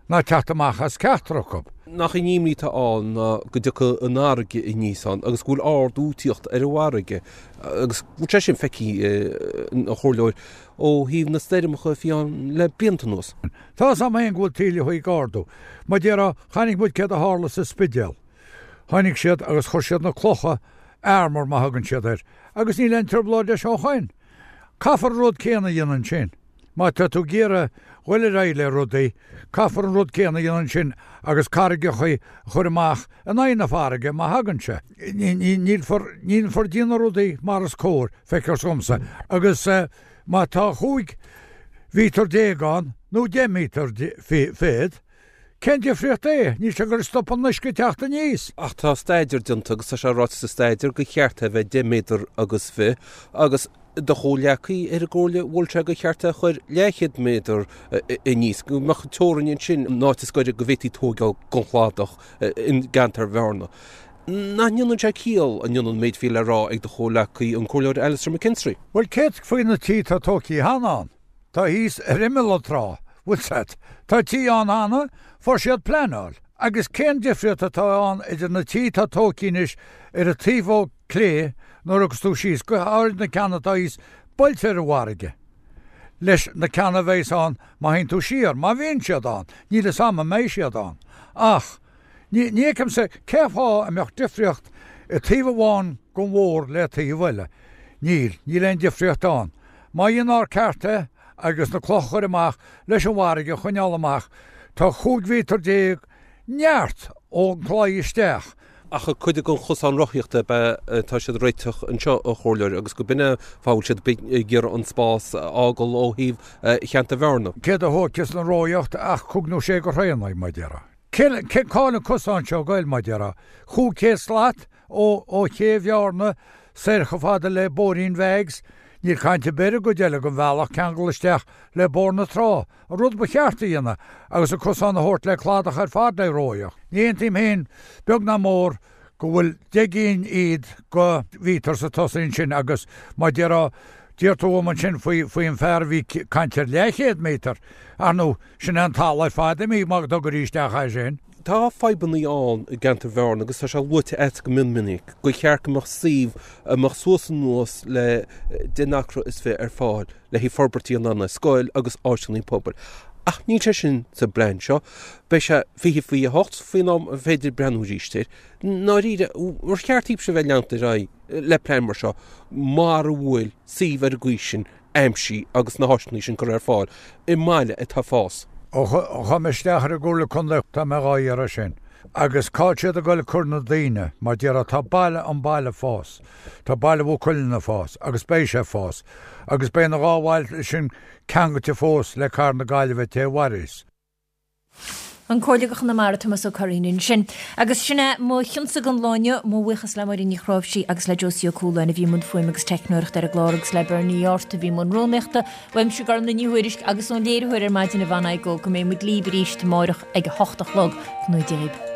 ná teacht amach as ceachtar acu. Nach í an imní atá ann ná go dtiocfaidh an fharraige aníos ann agus go bhfuil ardú ag tíocht ar an bhfarraige agus go bhfuil sé sin feicthe, a Chomhairleoir, ó thaobh na stoirmeacha a bhí ann le blianta anuas. Tá 'fhios a'm féin go bhfuil taoilleacha ag ardú. Mar déarfá, chonaic muid céard a tharla sa Spidéal. Tháinig siad agus chuir siad na clocha, armour mar a thugann siad air, agus níl aon trioblóid leis ó shoin. Caithfear an rud céanna a dhéanamh ansin. Má tá tú ag iarraidh dhul ar aghaidh le rudaí, caithfear an rud céanna a dhéanamh ansin agus carraigeacha a chur amach in aghaidh na farraige má thagann sé. Nílfear, nílfear ag déanamh rudaí mar is cóir, feictear dhomsa. Agus má tá chúig mhíotar déag ann, nó deich míotar fichead. Cén difríocht é? Níl sé ag goil a stop an uisce teacht aníos. Ach tá staidéar déanta agus tá sé ráite sa staidéar gur cheart é a bheith deich méadar agus fiche agus do chomhghleacaí ar an gcomhairle mhol sé gur cheart é a chur leathchéad méadar aníos, go mbeadh teorainn ansin an áit is gaire go bhféadfaí tóigeáil gon chladach i gceantar Bhearna. Nach ndéanann sé ciall, an ndéanann an méid a bhí le rá ag do chomhghleacaí, an Comhairleoir Alastair McKinstry? Bhuel, céard faoi na tithe atá tógtha cheana ann? Tá thíos ar imeall an trá, bhfuil 's a't. Tá tithe ann cheana, fuair siad pleanáil. Agus cén difríocht atá ann idir na tithe atá tógtha anois ar an taobh ó clé nuair a thiocfas tú síos, go háirid na ceanna atá thíos buailte ar an bhfarraige, leis na ceanna a bheas ann má théann tú siar, má bhíonn siad ann, níl 'fhios a'm an mbeidh siad ann. Ach, ní, ní fheicimse cé fáth a mbeadh difríocht i taobh amháin den bhóthar le taobh eile. Níl, níl aon difríocht ann. Má dhéanfar ceart é agus na clocha a chur amach leis an bhfarraige a choinneáil amach, tá 15 mhíotar neart ón gclaí isteach. Ach cuid den chosán rothaíochta ab ea atá siad ag réiteach anseo, a Chomhairleoir, agus go b'in é an fáth a bhfuil siad ag iarraidh an spás a fhágáil ó thaobh cheantar Bhearna. Céard a thógfas an rothaíocht ach cúig nó sé de throigheanna, mar a déarfá. Cé, cá bhfuil an cosán seo ag goil, mar a déarfá? 500 slat ó ché Bhearna soir chomh fada le Bóithrín Mheaigs, níl caint ar bith ar an gcuid eile den bhealach ceangal isteach le Bóthar na Trá, an rud ba cheart a dhéanamh agus an cosán a thabhairt le cladach ar fad le rothaíocht. Ní aontaím féin beag ná mór go bhfuil 10 gcinn iad de mhíotar sa tosaí ansin agus mar a déarfá, d'iarr tú uaim ansin faoi faoi an fear a bhí ag caint ar leathchéad méadar, ar ndóigh, sin é an talamh ar fad imithe má dtugtar isteach é sin. Tá fadhbanna ann i gceantar Bhearna agus tá sé luaite agat go mion minic gur cheart go mbeadh suíomh a mbeadh suas anuas le 10 n-acra is fi ar fáil le haghaidh forbairtí in ann scoil agus áiseanna pobail. Ach níl sé sin sa bplean seo. Beidh sé 20 faoi 8 faoin am a féidir breathnú arís air. I ndáiríre, ar cheart daoibhse a bheith ag leanacht ar aghaidh le plean mar seo mara bhfuil suíomh ar an gcaoi sin aimsithe agus na háiseanna sin curtha ar fáil i mbaile atá ag fás. Ó chuaigh mé isteach ar an gComhairle Contae tá mé dhá iarraidh sin. Agus cá bhfuil siad ag goil ag cur na daoine, mar déarfá tá baile an baile ag fás, tá baile Mhaigh Cuilinn ag fás agus beidh sé ag fás agus beidh na dhá bhaile sin ceangailte fós le Cathair na Gaillimhe té a mhairfeas. An Comhairleoir do Chonamara, Tomás Ó Curraoin ansin. Agus sin é mo chionsa don lá inniu. Mo bhuíochas le Máirín Ní Chnáimhsí agus le Josie Ó Cualáin a bhí i mbun fuaime agus teicneoireachta ar an gclár agus le Bernie Art a bhí i mbun rúnaíochta. Uaimse Gormlaith Ní Thuairisg agus ón léiritheoir ar maidin Yvonne Igoe go mbeidh muid libh arís amáireach ag a hocht a chlog. Go ngnóthaí Dia dhaoibh.